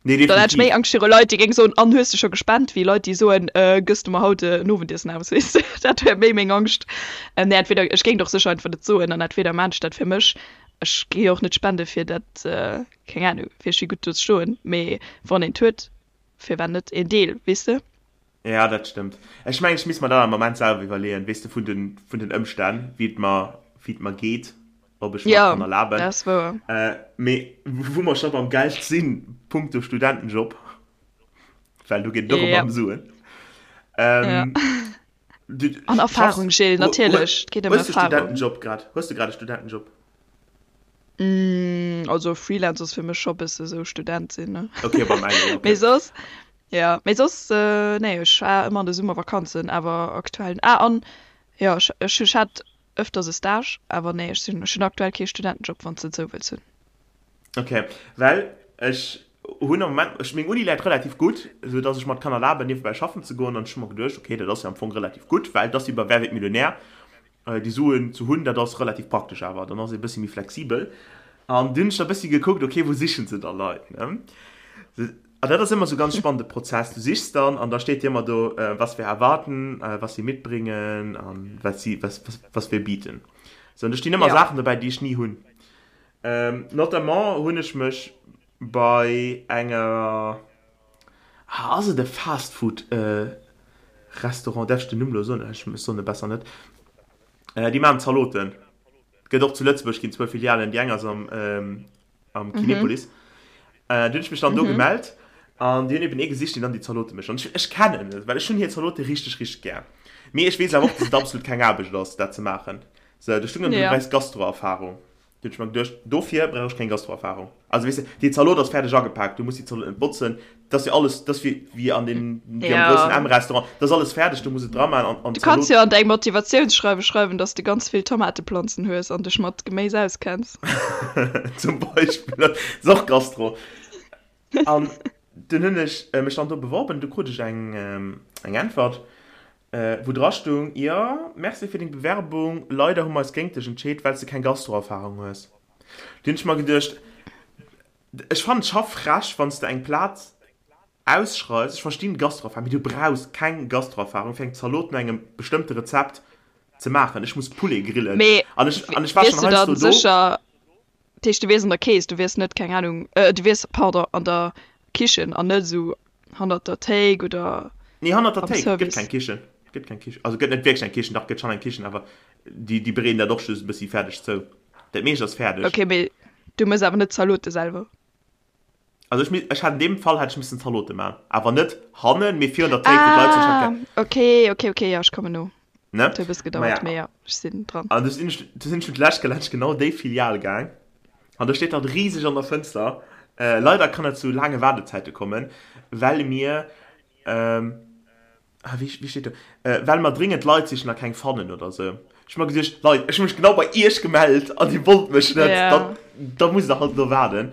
Nee, Dann hätt ech méi definitiv. Angscht viru Leit, déi géinge soen, an hues de scho gespent, wéi Leit, déi soen, gëss du mer haut en Owendiessen aus, weess de. Dat wär méi meng Angscht. Nee, entweder, ech géing et och sécher einfach net soen, an entweder maan ech dat fir mech, ech gi jo och net spende fir dat, keng Ahnung, fir ech si gutt do ze stoen, mee wann een et huet, firwat net een Deel, weess de. Ja, dat stëmmt. Ech mengen, ech misst mer dat am Moment selwer iwwerleeën, weess de, vun den, vun den Ëmstänn, wéi et mer, wéi et mer geet, ob ech mer Ja, kann erlaben. dat ass wouer. Äh, mee wou mer scho beim Geld sinn, punkto Studentenjob, well do geet et och ëmmer Ja. ëm Suen. Ja. Ähm, du An schaffs, Erfahrung, Gilles, hu, hu, natierlech. Et geet ëm hues de Erfahrung. Studentenjob grad? Hues de grad e Studentenjob? Mm, also Freelance ass fir mech scho bësse sou Student sinn, ne? Okay, beim engen, Mee okay. soss, ja, mee soss, nee, ech war ëmmer an de Summervakanzen, awer aktuell, ah, an jo, ech, ech, ech hat ëfters e Stage, awer nee, ech sinn, ech hunn aktuell kee Studentenjob, wann s de et sou wëlls hunn. Okay, well ech hunn am Moment, ech, meng Uni läit relativ gutt, esou dass ech mer et kann erlaben, niewebäi schaffen ze goen, an ech hu mer geduecht, okay, dat ass jo am Fong relativ gutt, well et ass wéi bei Wer wird Millionär? Déi Suen ze hunn, dat ass relativ praktesch awer, dann ass ee bëssi méi flexibel. An dunn hunn ech da bëssi gekuckt, okay, wou sichen se da Leit, ne? An dat ass ëmmer esou ganz spannende Prozess. Du sichs dann an da steet dir ëmmer do, was wir erwarten, was sie mitbringen an was sie, was, was, was wir bieten. Sou, an do stinn ëmmer Ja. Saachen dobäi, déi ech ni hunn. Notamment hunn ech mech bei enger, ah, ass et e Fast-Food Restaurant, däerf ech den Numm elo soen? Ech soen e besser net. Déi maachen Zaloten. Gëtt och zu Lëtzebuerg, ginn zwou Filialen, déi eng ass am am Kinepolis. Du hunn ech mech dann do gemellt an déi hunn eben ee gesicht, deen dann déi Zalote mécht. An ech, ech kennen et, well ech hunn hir Zalote richteg, richteg gär. Mee ech weess awer och, dass et absolut keng Aarbecht ass, dat ze maachen. Sou, do stung dann, du brauchs Gastroerfahrung. Du hunn ech mer geduecht, dofir brauch ech keng Gastroerfahrung. Also weess de, déi Zalot ass fäerdeg agepaakt, du muss déi Zalot net botzen, dat ass jo alles, dat ass wéi, wéi an deem, wéi am groussen Ja. M-Restaurant, dat ass alles fäerdeg, du muss et dra maachen an, an Du kanns d'Zalot. jo an däi Motivatiounsschreiwe schreiwen, dass de ganz vill Tomateplanzen hues an dech mat Geméis auskenns. Zum Beispill, dat ass och Gastro. An dunn hunn ech mech dann do beworben, du krut ech eng, eng Äntwert, wou dra stung, Jo, merci fir deng Bewerbung, leider hu mer eis géint dech entscheet, well s de keng Gastroerfahrung hues. Du hunn ech mer geduecht, ech fannen et scho frech, wann s de eng Plaz ausschreifs, ech verstinn Gastroerfahrung, mee du brauchs keng Gastroerfahrung fir eng Zalot no engem bestëmmte Rezept ze maachen. Ech muss Poulet grillen Mee an ech, an ech war wiers schonn du heiansdo dann do. sécher, Dat heescht, du wiers an der Kees, du wiers net, keng Ahnung, du wiers, pardon, an der Kichen an net esou hannert der Théik oder Nee, hannert der am Théik gëtt Service. keng Kichen. Gëtt keng Kichen. Also gëtt net wierklech eng Kichen, dach gëtt schonn eng Kichen, awer déi, déi bereeden dat och just e bëssi fäerdeg zou. Dat meescht ass fäerdeg. Okay, mee du méchs awer net d'Zalote selwer? Also ech, ech hat an deem Fall hätt ech missen Zalote man, awer net hannen, mee virun der Théik, wou d'Leit sech Ah, hätte. okay, okay, okay, jo, ech kommen no. Ne? Et huet e bësse Maja. gedauert, mee jo, ech sinn dran. An du sinn ech, du sinn ech mit lech gelaanscht genau déi Filial gaang. An do steet dann riseg an der Fënster, äh, leider kann et zu laange Waardezäite kommen, well mir, ähm, ah, wéi, wéi steet do, äh, well mer dringend Leit sichen a keng fannen oder sou. Ech hu mer geduecht, Leit, ech hu mech genau bei iech gemellt an dir wollt mech net, Ja. dann, da musst der halt elo waarden.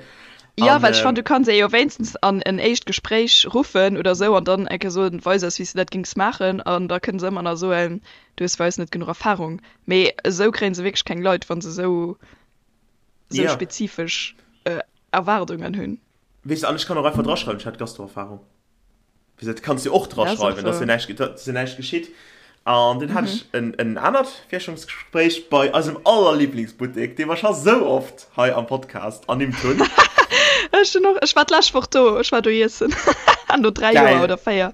Jo, An, well ech fannen, ähm, du kanns ee jo wéinstens an en éischt Gespréich ruffen oder sou an dann eng Kéier soen, weis eis, wéi s de dat géings maachen. An da kënne se ëmmer nach soen, du hues bei eis net genuch Erfarung. Mee esou kréie se wierklech keng Leit, wa se esou esou ja. spezifesch Erwaardungen hunn. Weess de, an ech kann och einfach draschreiwen, ech hätt Gastroerfahrung. Wéi dat kanns du och Dat ass och draschreiwen, dass jo wouer. näischt, dass jo näischt geschitt. An dunn hat ech en, en anert Virstellungsgespréich bei eisem allerliblingsbuttek, dee mer scho sou oft hei am Podcast ernimmt hunn. Ech hunn och, ech war d'lescht Woch do, ech war do iessen. No 3 Joer Geil. oder 4.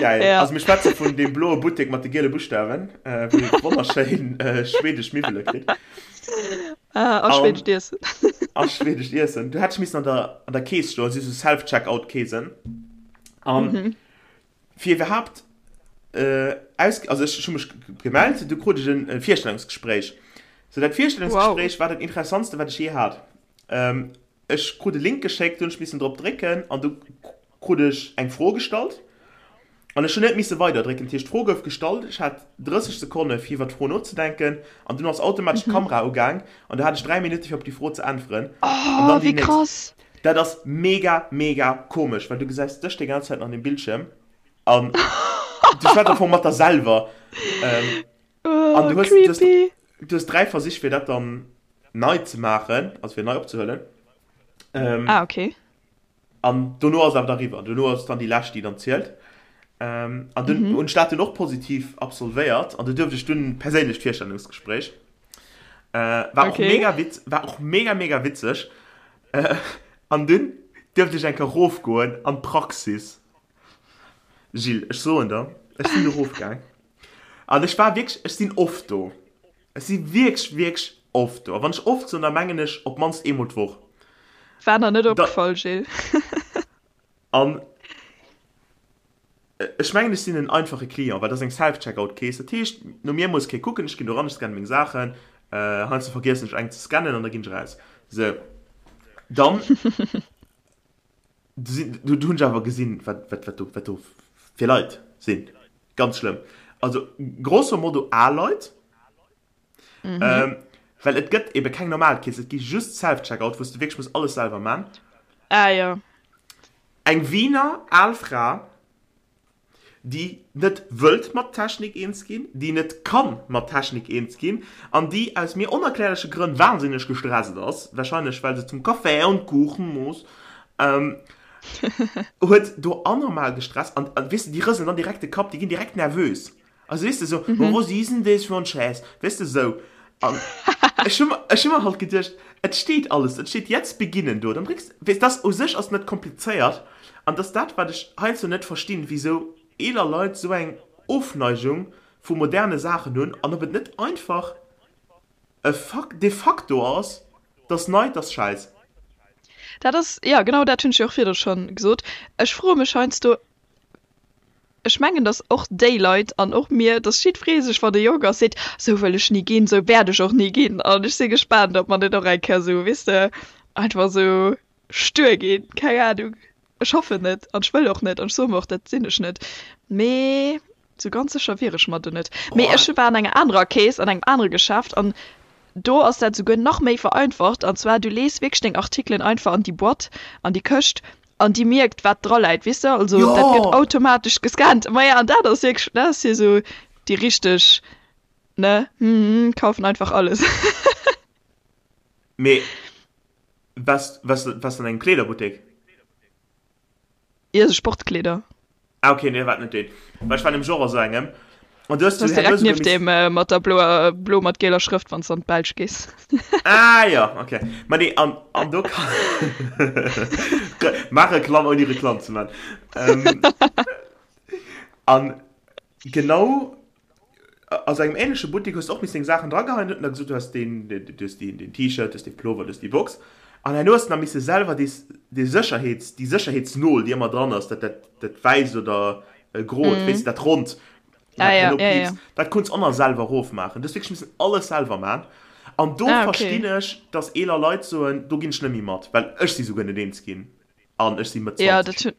Geil. Ja. Also mir schwätze vun deem bloe Buttek mat de giele Buschtawen, wou ee wonnerschéin schwedesch Miwwele kritt. Ah, a schwedescht Iessen. A schwedescht Iessen. Du hätt missen an der, an der Kees stoen, si so Self-Checkout-Keesen. An mhm. fir iwwerhaapt äh, aus, also ech hu mech gemellt, du krut ech en Virstellungsgespréich. So dat Virstellungsgespréich wow. war dat interessantste, wat ech je hat. Ähm, Ech krut e Link geschéckt, do hunn ech missen drop drécken an du krut ech eng Fro gestallt an ech hunn net misse weider drécken. Dat heescht, d'Fro gouf gestallt, ech hat 30 Sekonne fir iwwer d'Fro nozedenken an dunn ass automatesch d'Kamera ugaang an du hat ech 3 Minutte fir op déi Fro ze äntweren an Oh, dann déi wéi nächst. krass! Dat ass mega, mega komesch, well du gesäis dech déi ganz Zäit an dem Bildschierm an du schwätz am Fong mat der selwer. Oh, An du hues, du hues, creepy! du hues 3 Versich fir dat dann nei ze maachen, also fir nei opzehuelen. Ähm, Ah, okay. An dono ass awer da riwwer. Dono ass dann déi lescht, déi dann zielt. Ähm, an dunn mhm. hunn ech dat dunn och positiv absolvéiert an du duerft ech dunn perséinlecht Virstellungsgespréich. Äh, war okay. och mega witz, war och mega mega witzeg. Äh, an dunn duerft ech eng Kéier rofgoen an d'Praxis. Gilles, ech soen der, ech sinn do erofgaang an ech war wierklech, ech sinn oft do. Ech si wierklech, wierklech oft do. A wann ech oft soen, da mengen ech op d'mannst eemol d'Woch. War der net opgefall, Gilles. An ech mengen, ech sinn en einfache Client, well dat ass eng Self-Checkout-Kees. Dat heescht, no mir muss kee kucken, ech ginn do ran, ech scanne meng Saachen. Heiansdo vergiessen ech eng ze scannen an da ginn ech eraus. Sou, dann du hunn ech awer gesinn, wat, wat, wat do, wat do fir Leit sinn. Ganz schlëmm. Also grosso modo al Leit. Mhm. Ähm, well et gëtt ebe keng normal Kees, et gi just Self-Checkout, wou s du wierklech muss alles selwer man. Ah ja. Eng Wiener al Fra, déi net wëllt mat Technik eens ginn, déi net kann mat Technik eens ginn an déi aus mir onerklärleche Grënn wahnsinneg gestresst ass, wahrscheinlech well se zum Café und Kuchen muss, ähm, huet do anormal gestresst an, an weess de, déi rëselen dann direkt de Kapp, déi ginn direkt nervös. Also weess de sou, mm -hmm. was is denn das für ein Scheiß? Weess de sou. An ech hu ech hu mer halt geduecht, et steet alles, et steet jetzt beginnen do. Dann drécks, weess das u sech ass net komplizéiert an dass dat wat ech heiansdo net verstinn, wisou eeler Leit sou eng Ofneigung vu moderne Saachen hunn an ob et net einfach e Fakt de facto ass, dass nei, dass Schäiss. Dat ass, jo genau dat hunn ech jo och virdru schonn gesot. Ech froe mech heiansdo, Ech mengen, datt och déi Leit an och mir, datt jiddweree sech, wann e jonk ass, seet, Sou wëll ech ni ginn, sou wäert ech och ni ginn. An ech si gespaant, ob mer net och eng Kéier sou, weess de, einfach sou stuer ginn. Keng Anung. Ech hoffen net an ech wëll och net an ech soe mer och, dat sinn ech net. Mee sou ganz sécher wier ech mer do net. Mee ech war an enger anerer Kees, an engem anere Geschäft an do ass dat souguer nach méi vereinfacht. An zwar, du lees wierklech deng Artikelen einfach an déi Boîte, an déi Këscht An déi mierkt, wat dra läit, weess de? Also dat gëtt Jo! automatesch gescannt. Maja, an dat ass wierklech, dat ass jo esou déi richteg, ne, hm, kaufen einfach alles. Mee waars, waars, waars an engem Kleederbuttek? Jo, esou Sportkleeder. Ah ok, nee, war net deen. Well ech war nämlech och a sou engem. An du hues Du du direkt herno souguer nieft miss. deem mat der bloer, blo mat gieler Schrëft, wann s de an d'Belsch gees. Ah jo, ok. Ma nee, an, an do kann. Maach Reklamm ouni Reklamm ze man. Ähm, an genau a sou engem ähnleche Buttek hues de och missen deng Saachen drageheien, huet en da gesot, du hues deen, du hues deen, deen T-Shirt, du hues dee Plover, du hues déi Box. An herno hues de nach misse selwer dee, dee Sécherheets, déi Sécherheetsnol, déi ëmmer dran ass, dat, dat, dat wäisst oder grot, weess de, dat ronnt, Ah wat ja, herno ja, ja. piipst, dat konns och nach selwer erofmaachen. Du hues wierklech missen alles selwer man. An do Ah, okay. verstinn ech, dass eeler Leit soen, do ginn ech net méi mat, well ech si souguer net eens ginn an ech si Mëtt Ja, 20. dat hunn,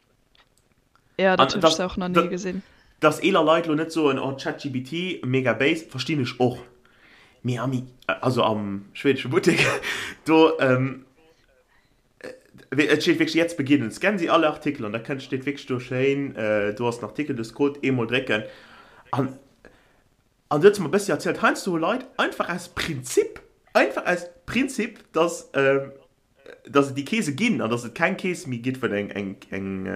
ja, dat An hunn ech dass, se och nach ni gesinn. dass eeler Leit lo net soen, oh ChatGPT, mega béis, verstinn ech och. Mee am, also am schwedesche Buttek, do, et steet wierklech jetzt beginnen, scannen Sie alle Artikel an da kënnt, steet wierklech do schéin, do ass den Artikel, du hues Code, eemol drécken an, an du huet se mer e bëssi erzielt, heiansdo hu Leit einfach aus Prinzip, einfach aus Prinzip, dass, dass et déi Keese ginn an dass et keng Kees méi gitt, wou eng, eng, eng,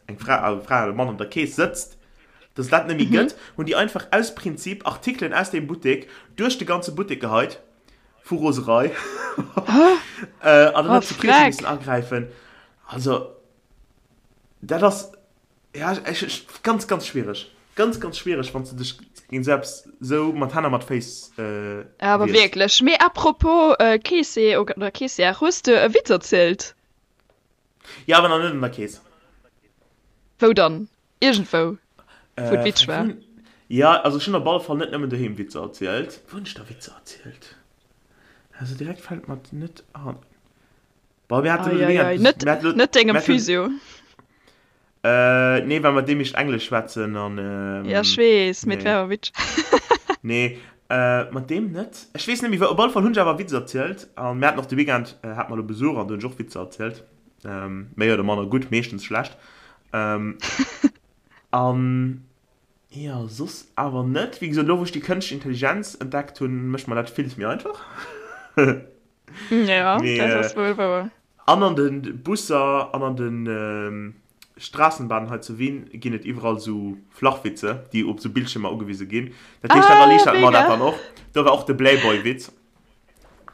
eng Fra, also Fra oder Mann an der Kees sëtzt, dass et dat net méi gëtt, hunn déi einfach aus Prinzip Artikelen aus deem Buttek duerch de ganze Buttek geheit, vu Roserei. An dann Oh, huet d'Security missen freck! agräifen. Also, dat ass, Ja, ech, ech, ganz, ganz schwierig. Ganz, ganz schwierig, wann du dech géint sou eppes sou mat Hänn a mat Féiss äh, Awer wiers. wierklech. Mee apropos äh, Keese oder Keessière, hues de e Witz erzielt? Ja, awer nach net an der Kees. Wou dann? Iergendwou, wou et Äh, witzeg war? wou, ja, also ech hunn op alle Fall net nëmmen doheem Witzer erzielt. Wou hunn ech da Witzer erzielt? Also direkt fält mer net an. Boah, mir haten elo de Eieiei, Weekend, net, mir haten elo, net dengem mir haten, Physio. äh, nee, well mat deem ech Englesch schwätzen an, Ja, ech ähm, weess, mee et nee, wär awer witzeg. nee, äh, mat deem net. Ech weess net méi, wou, op alle Fall hunn ech awer Witzer erzielt an mir haten och de Weekend, äh, hate mer elo Besuch an do hunn ech och Witzer erzielt, ähm, méi oder manner gutt, meeschtens schlecht, ähm, an jo, soss awer net. Wéi gesot, elo wou ech déi kënschtlech Intelligenz entdeckt hunn, mécht mer dat villes méi einfach. Ja, Mee, dat ass wuel wouer. An an de Busser an an de Straßenbahnen hei zu Wien ginn et iwwerall esou Flachwitze, déi op esou Bildschiermer ugewise ginn. Dat heescht, dat Ah, erliichtert mer dat mega! dann och. Do war och de Blayboy-Witz.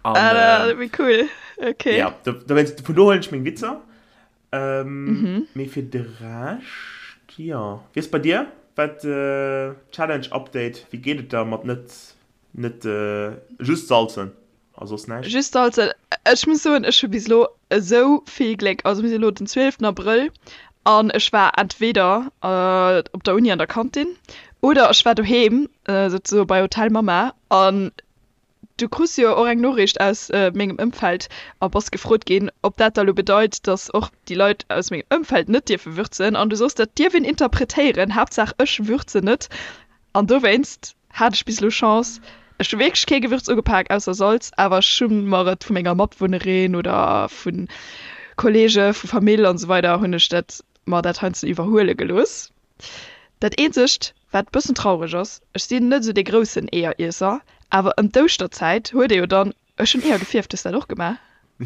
An, Ah, wéi cool. Okay. Ja, do, dowéinst, vun do huelen ech meng Witzer. Ähm, Mee fir de Rescht. Jo, wéi ass bei dir? Wat Challenge Update, wéi geet et der mat net net just salzen a soss näischt? Just salzen, ech muss soen ech hu bis elo esou vill Gléck, also mir si elo den 12 Abrëll an ech war entweder op der Uni an der Kantin oder ech war doheem souzesoe bei Hotel Mama an Du krus jo och eng Noriicht aus mengem Ëmfeld a bass gefrot ginn, ob dat da lo bedeit, dass och déi Leit aus mengem Ëmfeld net dierfe würzen. An du sos, dat dierf een interpretéieren, Haaptsaach ech würzen net. An dowéinst hat ech bis elo Chance. Ech hu wierklech kee Gewürz ugepak ausser Salz, awer ech hu mer et vu menger Matwunnerin oder vu Kolleege, vu Famill an esou weider hunn ech dat mer dat heiansdo iwwerhuele gelooss. Dat eenzegt wat bëssen traureg ass, ech sinn net esou dee groussen Eeëriesser, awer ëm d'Ouschterzäit huet ee jo dann, ech hunn Eeër gefierft, hues dat och gemaach?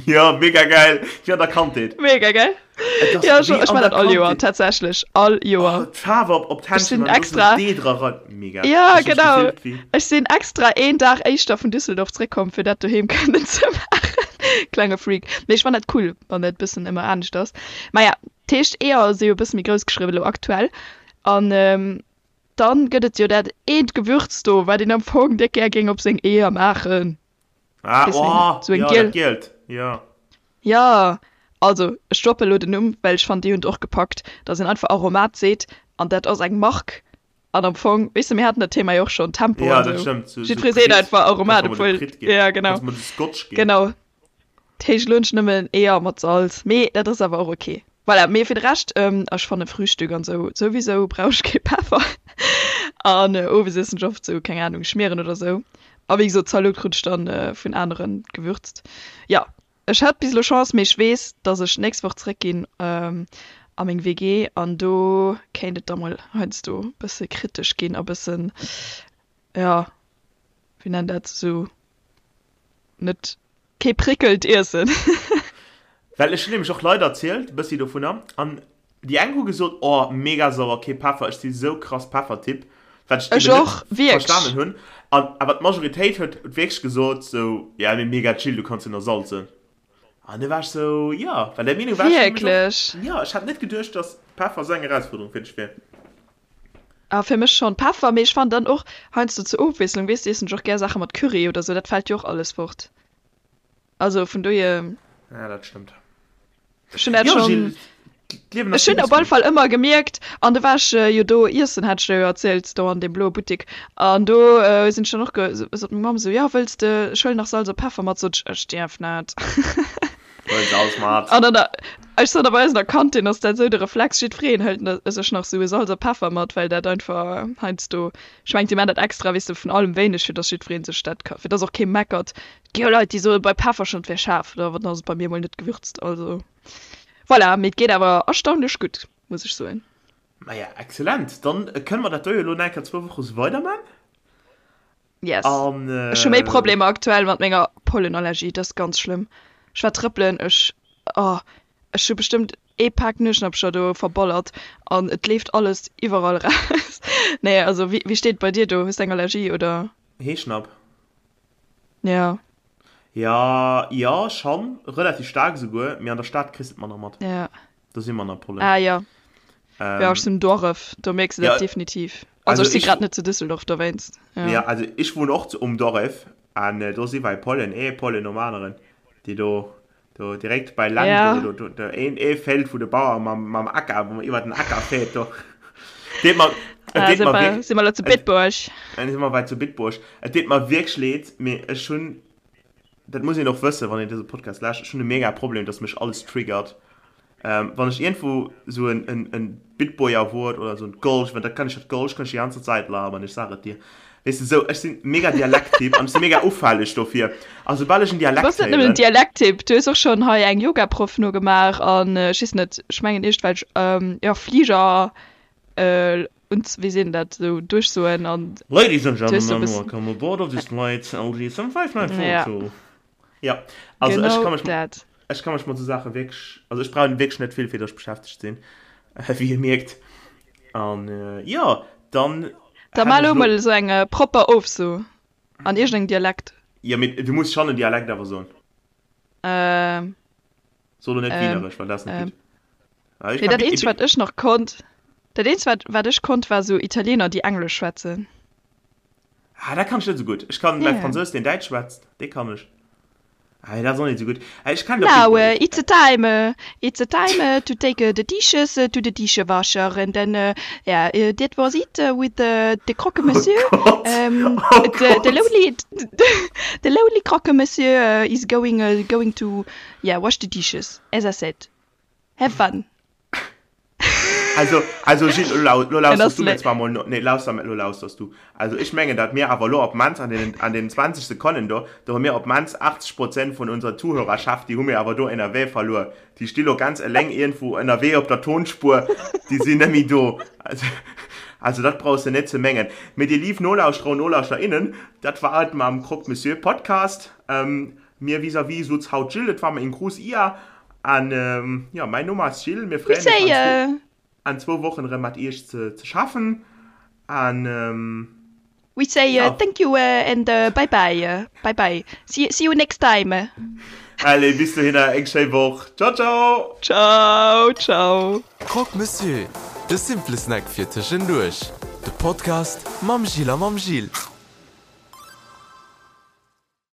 Jo, mega geil, wéi an der Kandheet. Mega geil, jo ech ech man dat all Joer tatsächlech, all Joer. Oh d'Faarf op op d'Händchen an do sou Dee dra rein, mega. Jo genau, ech sinn extra een Dag éischter vun Düsseldorf zréckkomm fir dat doheem kënnen ze maachen, klenge Freak, mee ech fann dat cool wann dat bëssen ëmmer anescht ass. Maja, D'heescht Eeër si jo e bësse méi grouss geschriwwen elo aktuell. An dann gëtt et jo dat eent Gewürz do, wat een am Fong déck gär géing op seng Eeër maachen. Ah, Weess wéi oh, sou eng jo, giel. dat gielt, jo. Jo, also ech droppe elo den Numm, well ech fannen déi hunn et och gepackt, dass een einfach Aromat seet an dat ass eng Mark an am Fong, weess de, mir haten dat Thema jo och schonn, Tempo Ja, an dat sou. stëmmt, sou, sou Jiddweree seet Pritt, einfach Aromat, kannst mer mol de obwuel, Pritt ginn, ja genau, kannst mer de Scotch ginn. genau. D'heescht elo net nëmmen Eeër mat Salz, mee dat ass awer och ok. Voilà, mee fir de Rescht, ech fanne Frühstück an sou souwisou brauch ech kee Peffer an owes iessen ech oft sou, keng Ahnung, Schmieren oder sou. A wéi gesot, Zalot krut ech dann vun aneren gewürzt. Jo, ech hat bis elo Chance, mee ech weess, dass ech d'nächst Woch zréck ginn a meng WG an do kéint et da mol heiansdo bësse kritesch ginn a bëssen, jo, wéi nennt dat, sou net kee prickelnd Iessen. Well ech hunn nämlech och Leit erzielt, bëssi dovunner, an déi eng hu gesot, oh mega sauer, kee Peffer, ech si sou krass Peffertyp, wat ech eben Ech och, net wierklech. verstanen hunn, an awer d'Majoritéit huet wierklech gesot sou, ja mee mega chill, du kanns jo nach salzen. An du war ech sou, jo, well där Meenung war ech nämlech och, Wierklech? jo, ech hat net geduecht, dass Peffer sou eng Erausfuerderung fir dech wier. Ah, fir mech schon Peffer, mee ech fannen dann och heiansdo zur Ofwiesslung, weess de, iessen ech och gär Saache mat Curry oder sou, dat fällt jo och alles fort. Also vun dohier. Ja, dat stëmmt. Ech hunn dat Jo, schon, Gilles, d'Liewen ass ech hunn op typesch alle gutt. Fall ëmmer gemierkt, an du war ech jo do iessen, hat ech der jo erzielt, do an deem bloe Buttik, an do sinn ech dann och ge, sot meng Mamm sou, jo, wëlls de, ech huelen nach Salz a Peffer mat, sot ech, ech dierf net. Huel Salz mat. An dann, ech sot, a bei eis an der Kantin ass dat esou de Reflex, jiddwereen hëlt sech nach sou e Salz a Peffer mat, well dat einfach heiansdo, ech mengen, si maachen dat extra, weess de, vun allem wéineg, fir dass jiddweree sech dat ka, fir dass och kee meckert. Et gi jo Leit, déi soe bei Peffer schonn, et wär schaarf, oder dann ass et bei mir mol net gewürzt. Also voilà, mee et geet awer erstaunlech gutt, muss ech soen. Maja, excellent. Dann kënne mer dat do jo elo nach eng Kéier zwou Woche sou weiderman. Yes. An, Ech hu méi Problemer aktuell mat menger Pollenallergie, dat ass ganz schlëmm. Ech war trëppelen, ech, oh, ech hu bestëmmt ee Pak Nueschnappcher do verballert an et leeft alles iwwerall raus. Nee, also wéi, wéi steet et bei dir do? Hues de eng Allergie oder? Heeschnapp. Ja. Ja, jo, schonn, relativ staark esouguer, mee an der Stad kriss de et manner mat. Ja. Do si manner Pollen. Ah ja. Ähm, ja, ech sinn Doref, do mierks du dat ja, definitiv. Also, also ech si ich, grad net zu Düsseldorf dowéinst. ja. Ja. also ich wohne och zu, um Doref an äh, do si wei Pollen, ee Pollen nom aneren, déi do, do direkt bei Land, Ja. do, do, do, do een, ee Feld wou de Bauer mam, mam Acker, wou man iwwer den Acker fährt, do. Deet mer, et Ah, deet si mer mer, wierk, si mer lo zu et, Bitburg. si mer wei zu Bitburg. Et deet mer wierklech leed, mee ech hunn dat muss een och wëssen, wann een dëse Podcast lauschtert, ech hunn e mega Problem, dass mech alles triggert. Ähm, wann ech iergendwou sou en, en, en Bitboyer Wuert oder sou en Golsch, well dat kann ech, dat Golsch kann ech déi ganze Zäit labern, ech sag et dir. Weess de, sou, ech sinn mega Dialekttyp an ech si mega ufälleg dofir. A soubal ech en Du Dialekt bass net nëmmen en héieren. Dialekttyp, du hues och schonn hei eng Yogaproff nogemaach an ech weess net, ech mengen iergendwelch, jo, Fliger, und wéi seet een dat, sou duerchsoen an Ladies and du hues sou e gentlemen, bëssen, welcome aboard of this flight LG ja, 75942. Ja, also ech genau ka mech, dat. ech ka mech mat sou Saache wierklech, also ech brauch wierklech net vill fir datt ech beschäftegt sinn, wéi Dir mierkt. An jo, dann Da hätt mar ech elo elo, mol esou eng propper Ofso an iergendengem Dialekt. jo mee du muss schonn en Dialekt awer soen. Ähm, So elo net ähm, Wieneresch, well dat ass net ähm. gutt. Ah, ech Nee, ka dat Bit, eenzegt wat ech nach konnt. Dat eenzegt wat wat ech konnt war sou Italiener déi Englesch schwätzen. Ah, dat kann ech net esou gutt. Ech kann mäi Fransous deen Däitsch schwätzt, dee kann ech. Ah, dat ass och net esou gutt. Ah, ech kann Now it's a time, it's a time to take the dishes to the dishewasher and then yeah, that was it with the croque monsieur. Oh Gott, oh Gott. The lonely, the lonely croque monsieur is going, going to yeah, wash the dishes, as I said. Have fun. Also, also Gilles, lo lau, lo lauschters du mir zwar mol no, nee, lauster, lo lauschters du. Also ech mengen, datt mir awer lo op d'mannst an deenen, an deenen 20 Sekonnen do, do hu mir op d'mannst 80 Prozent vun unserer Zuhörerschaft, déi hu mir awer do ënnerwee verluer. Déi sti lo ganz eleng iergendwou ënnerwee op der Tonspuer, déi sinn net méi do. Also, also dat brauchs de net ze mengen. Mee dir lief Nolauschterer und Nolauschterinnen, dat war et mam Croque Monsieur Podcast. Mir vis-à-vis sutz haut d'Jill, et war mer een gruuss Ier an jo, mäin Numm ass Jill. Mir freeën eis an zwou Wochen erëm mat iech ze schaffen an We say thank you and bye bye, bye bye, see you next time. Allez, bis dohinner eng schéi Woch, ciao ciao. Ciao ciao. Croque Monsieur, de simple Snack fir tëschenduerch. De Podcast mam Jill a mam Gilles.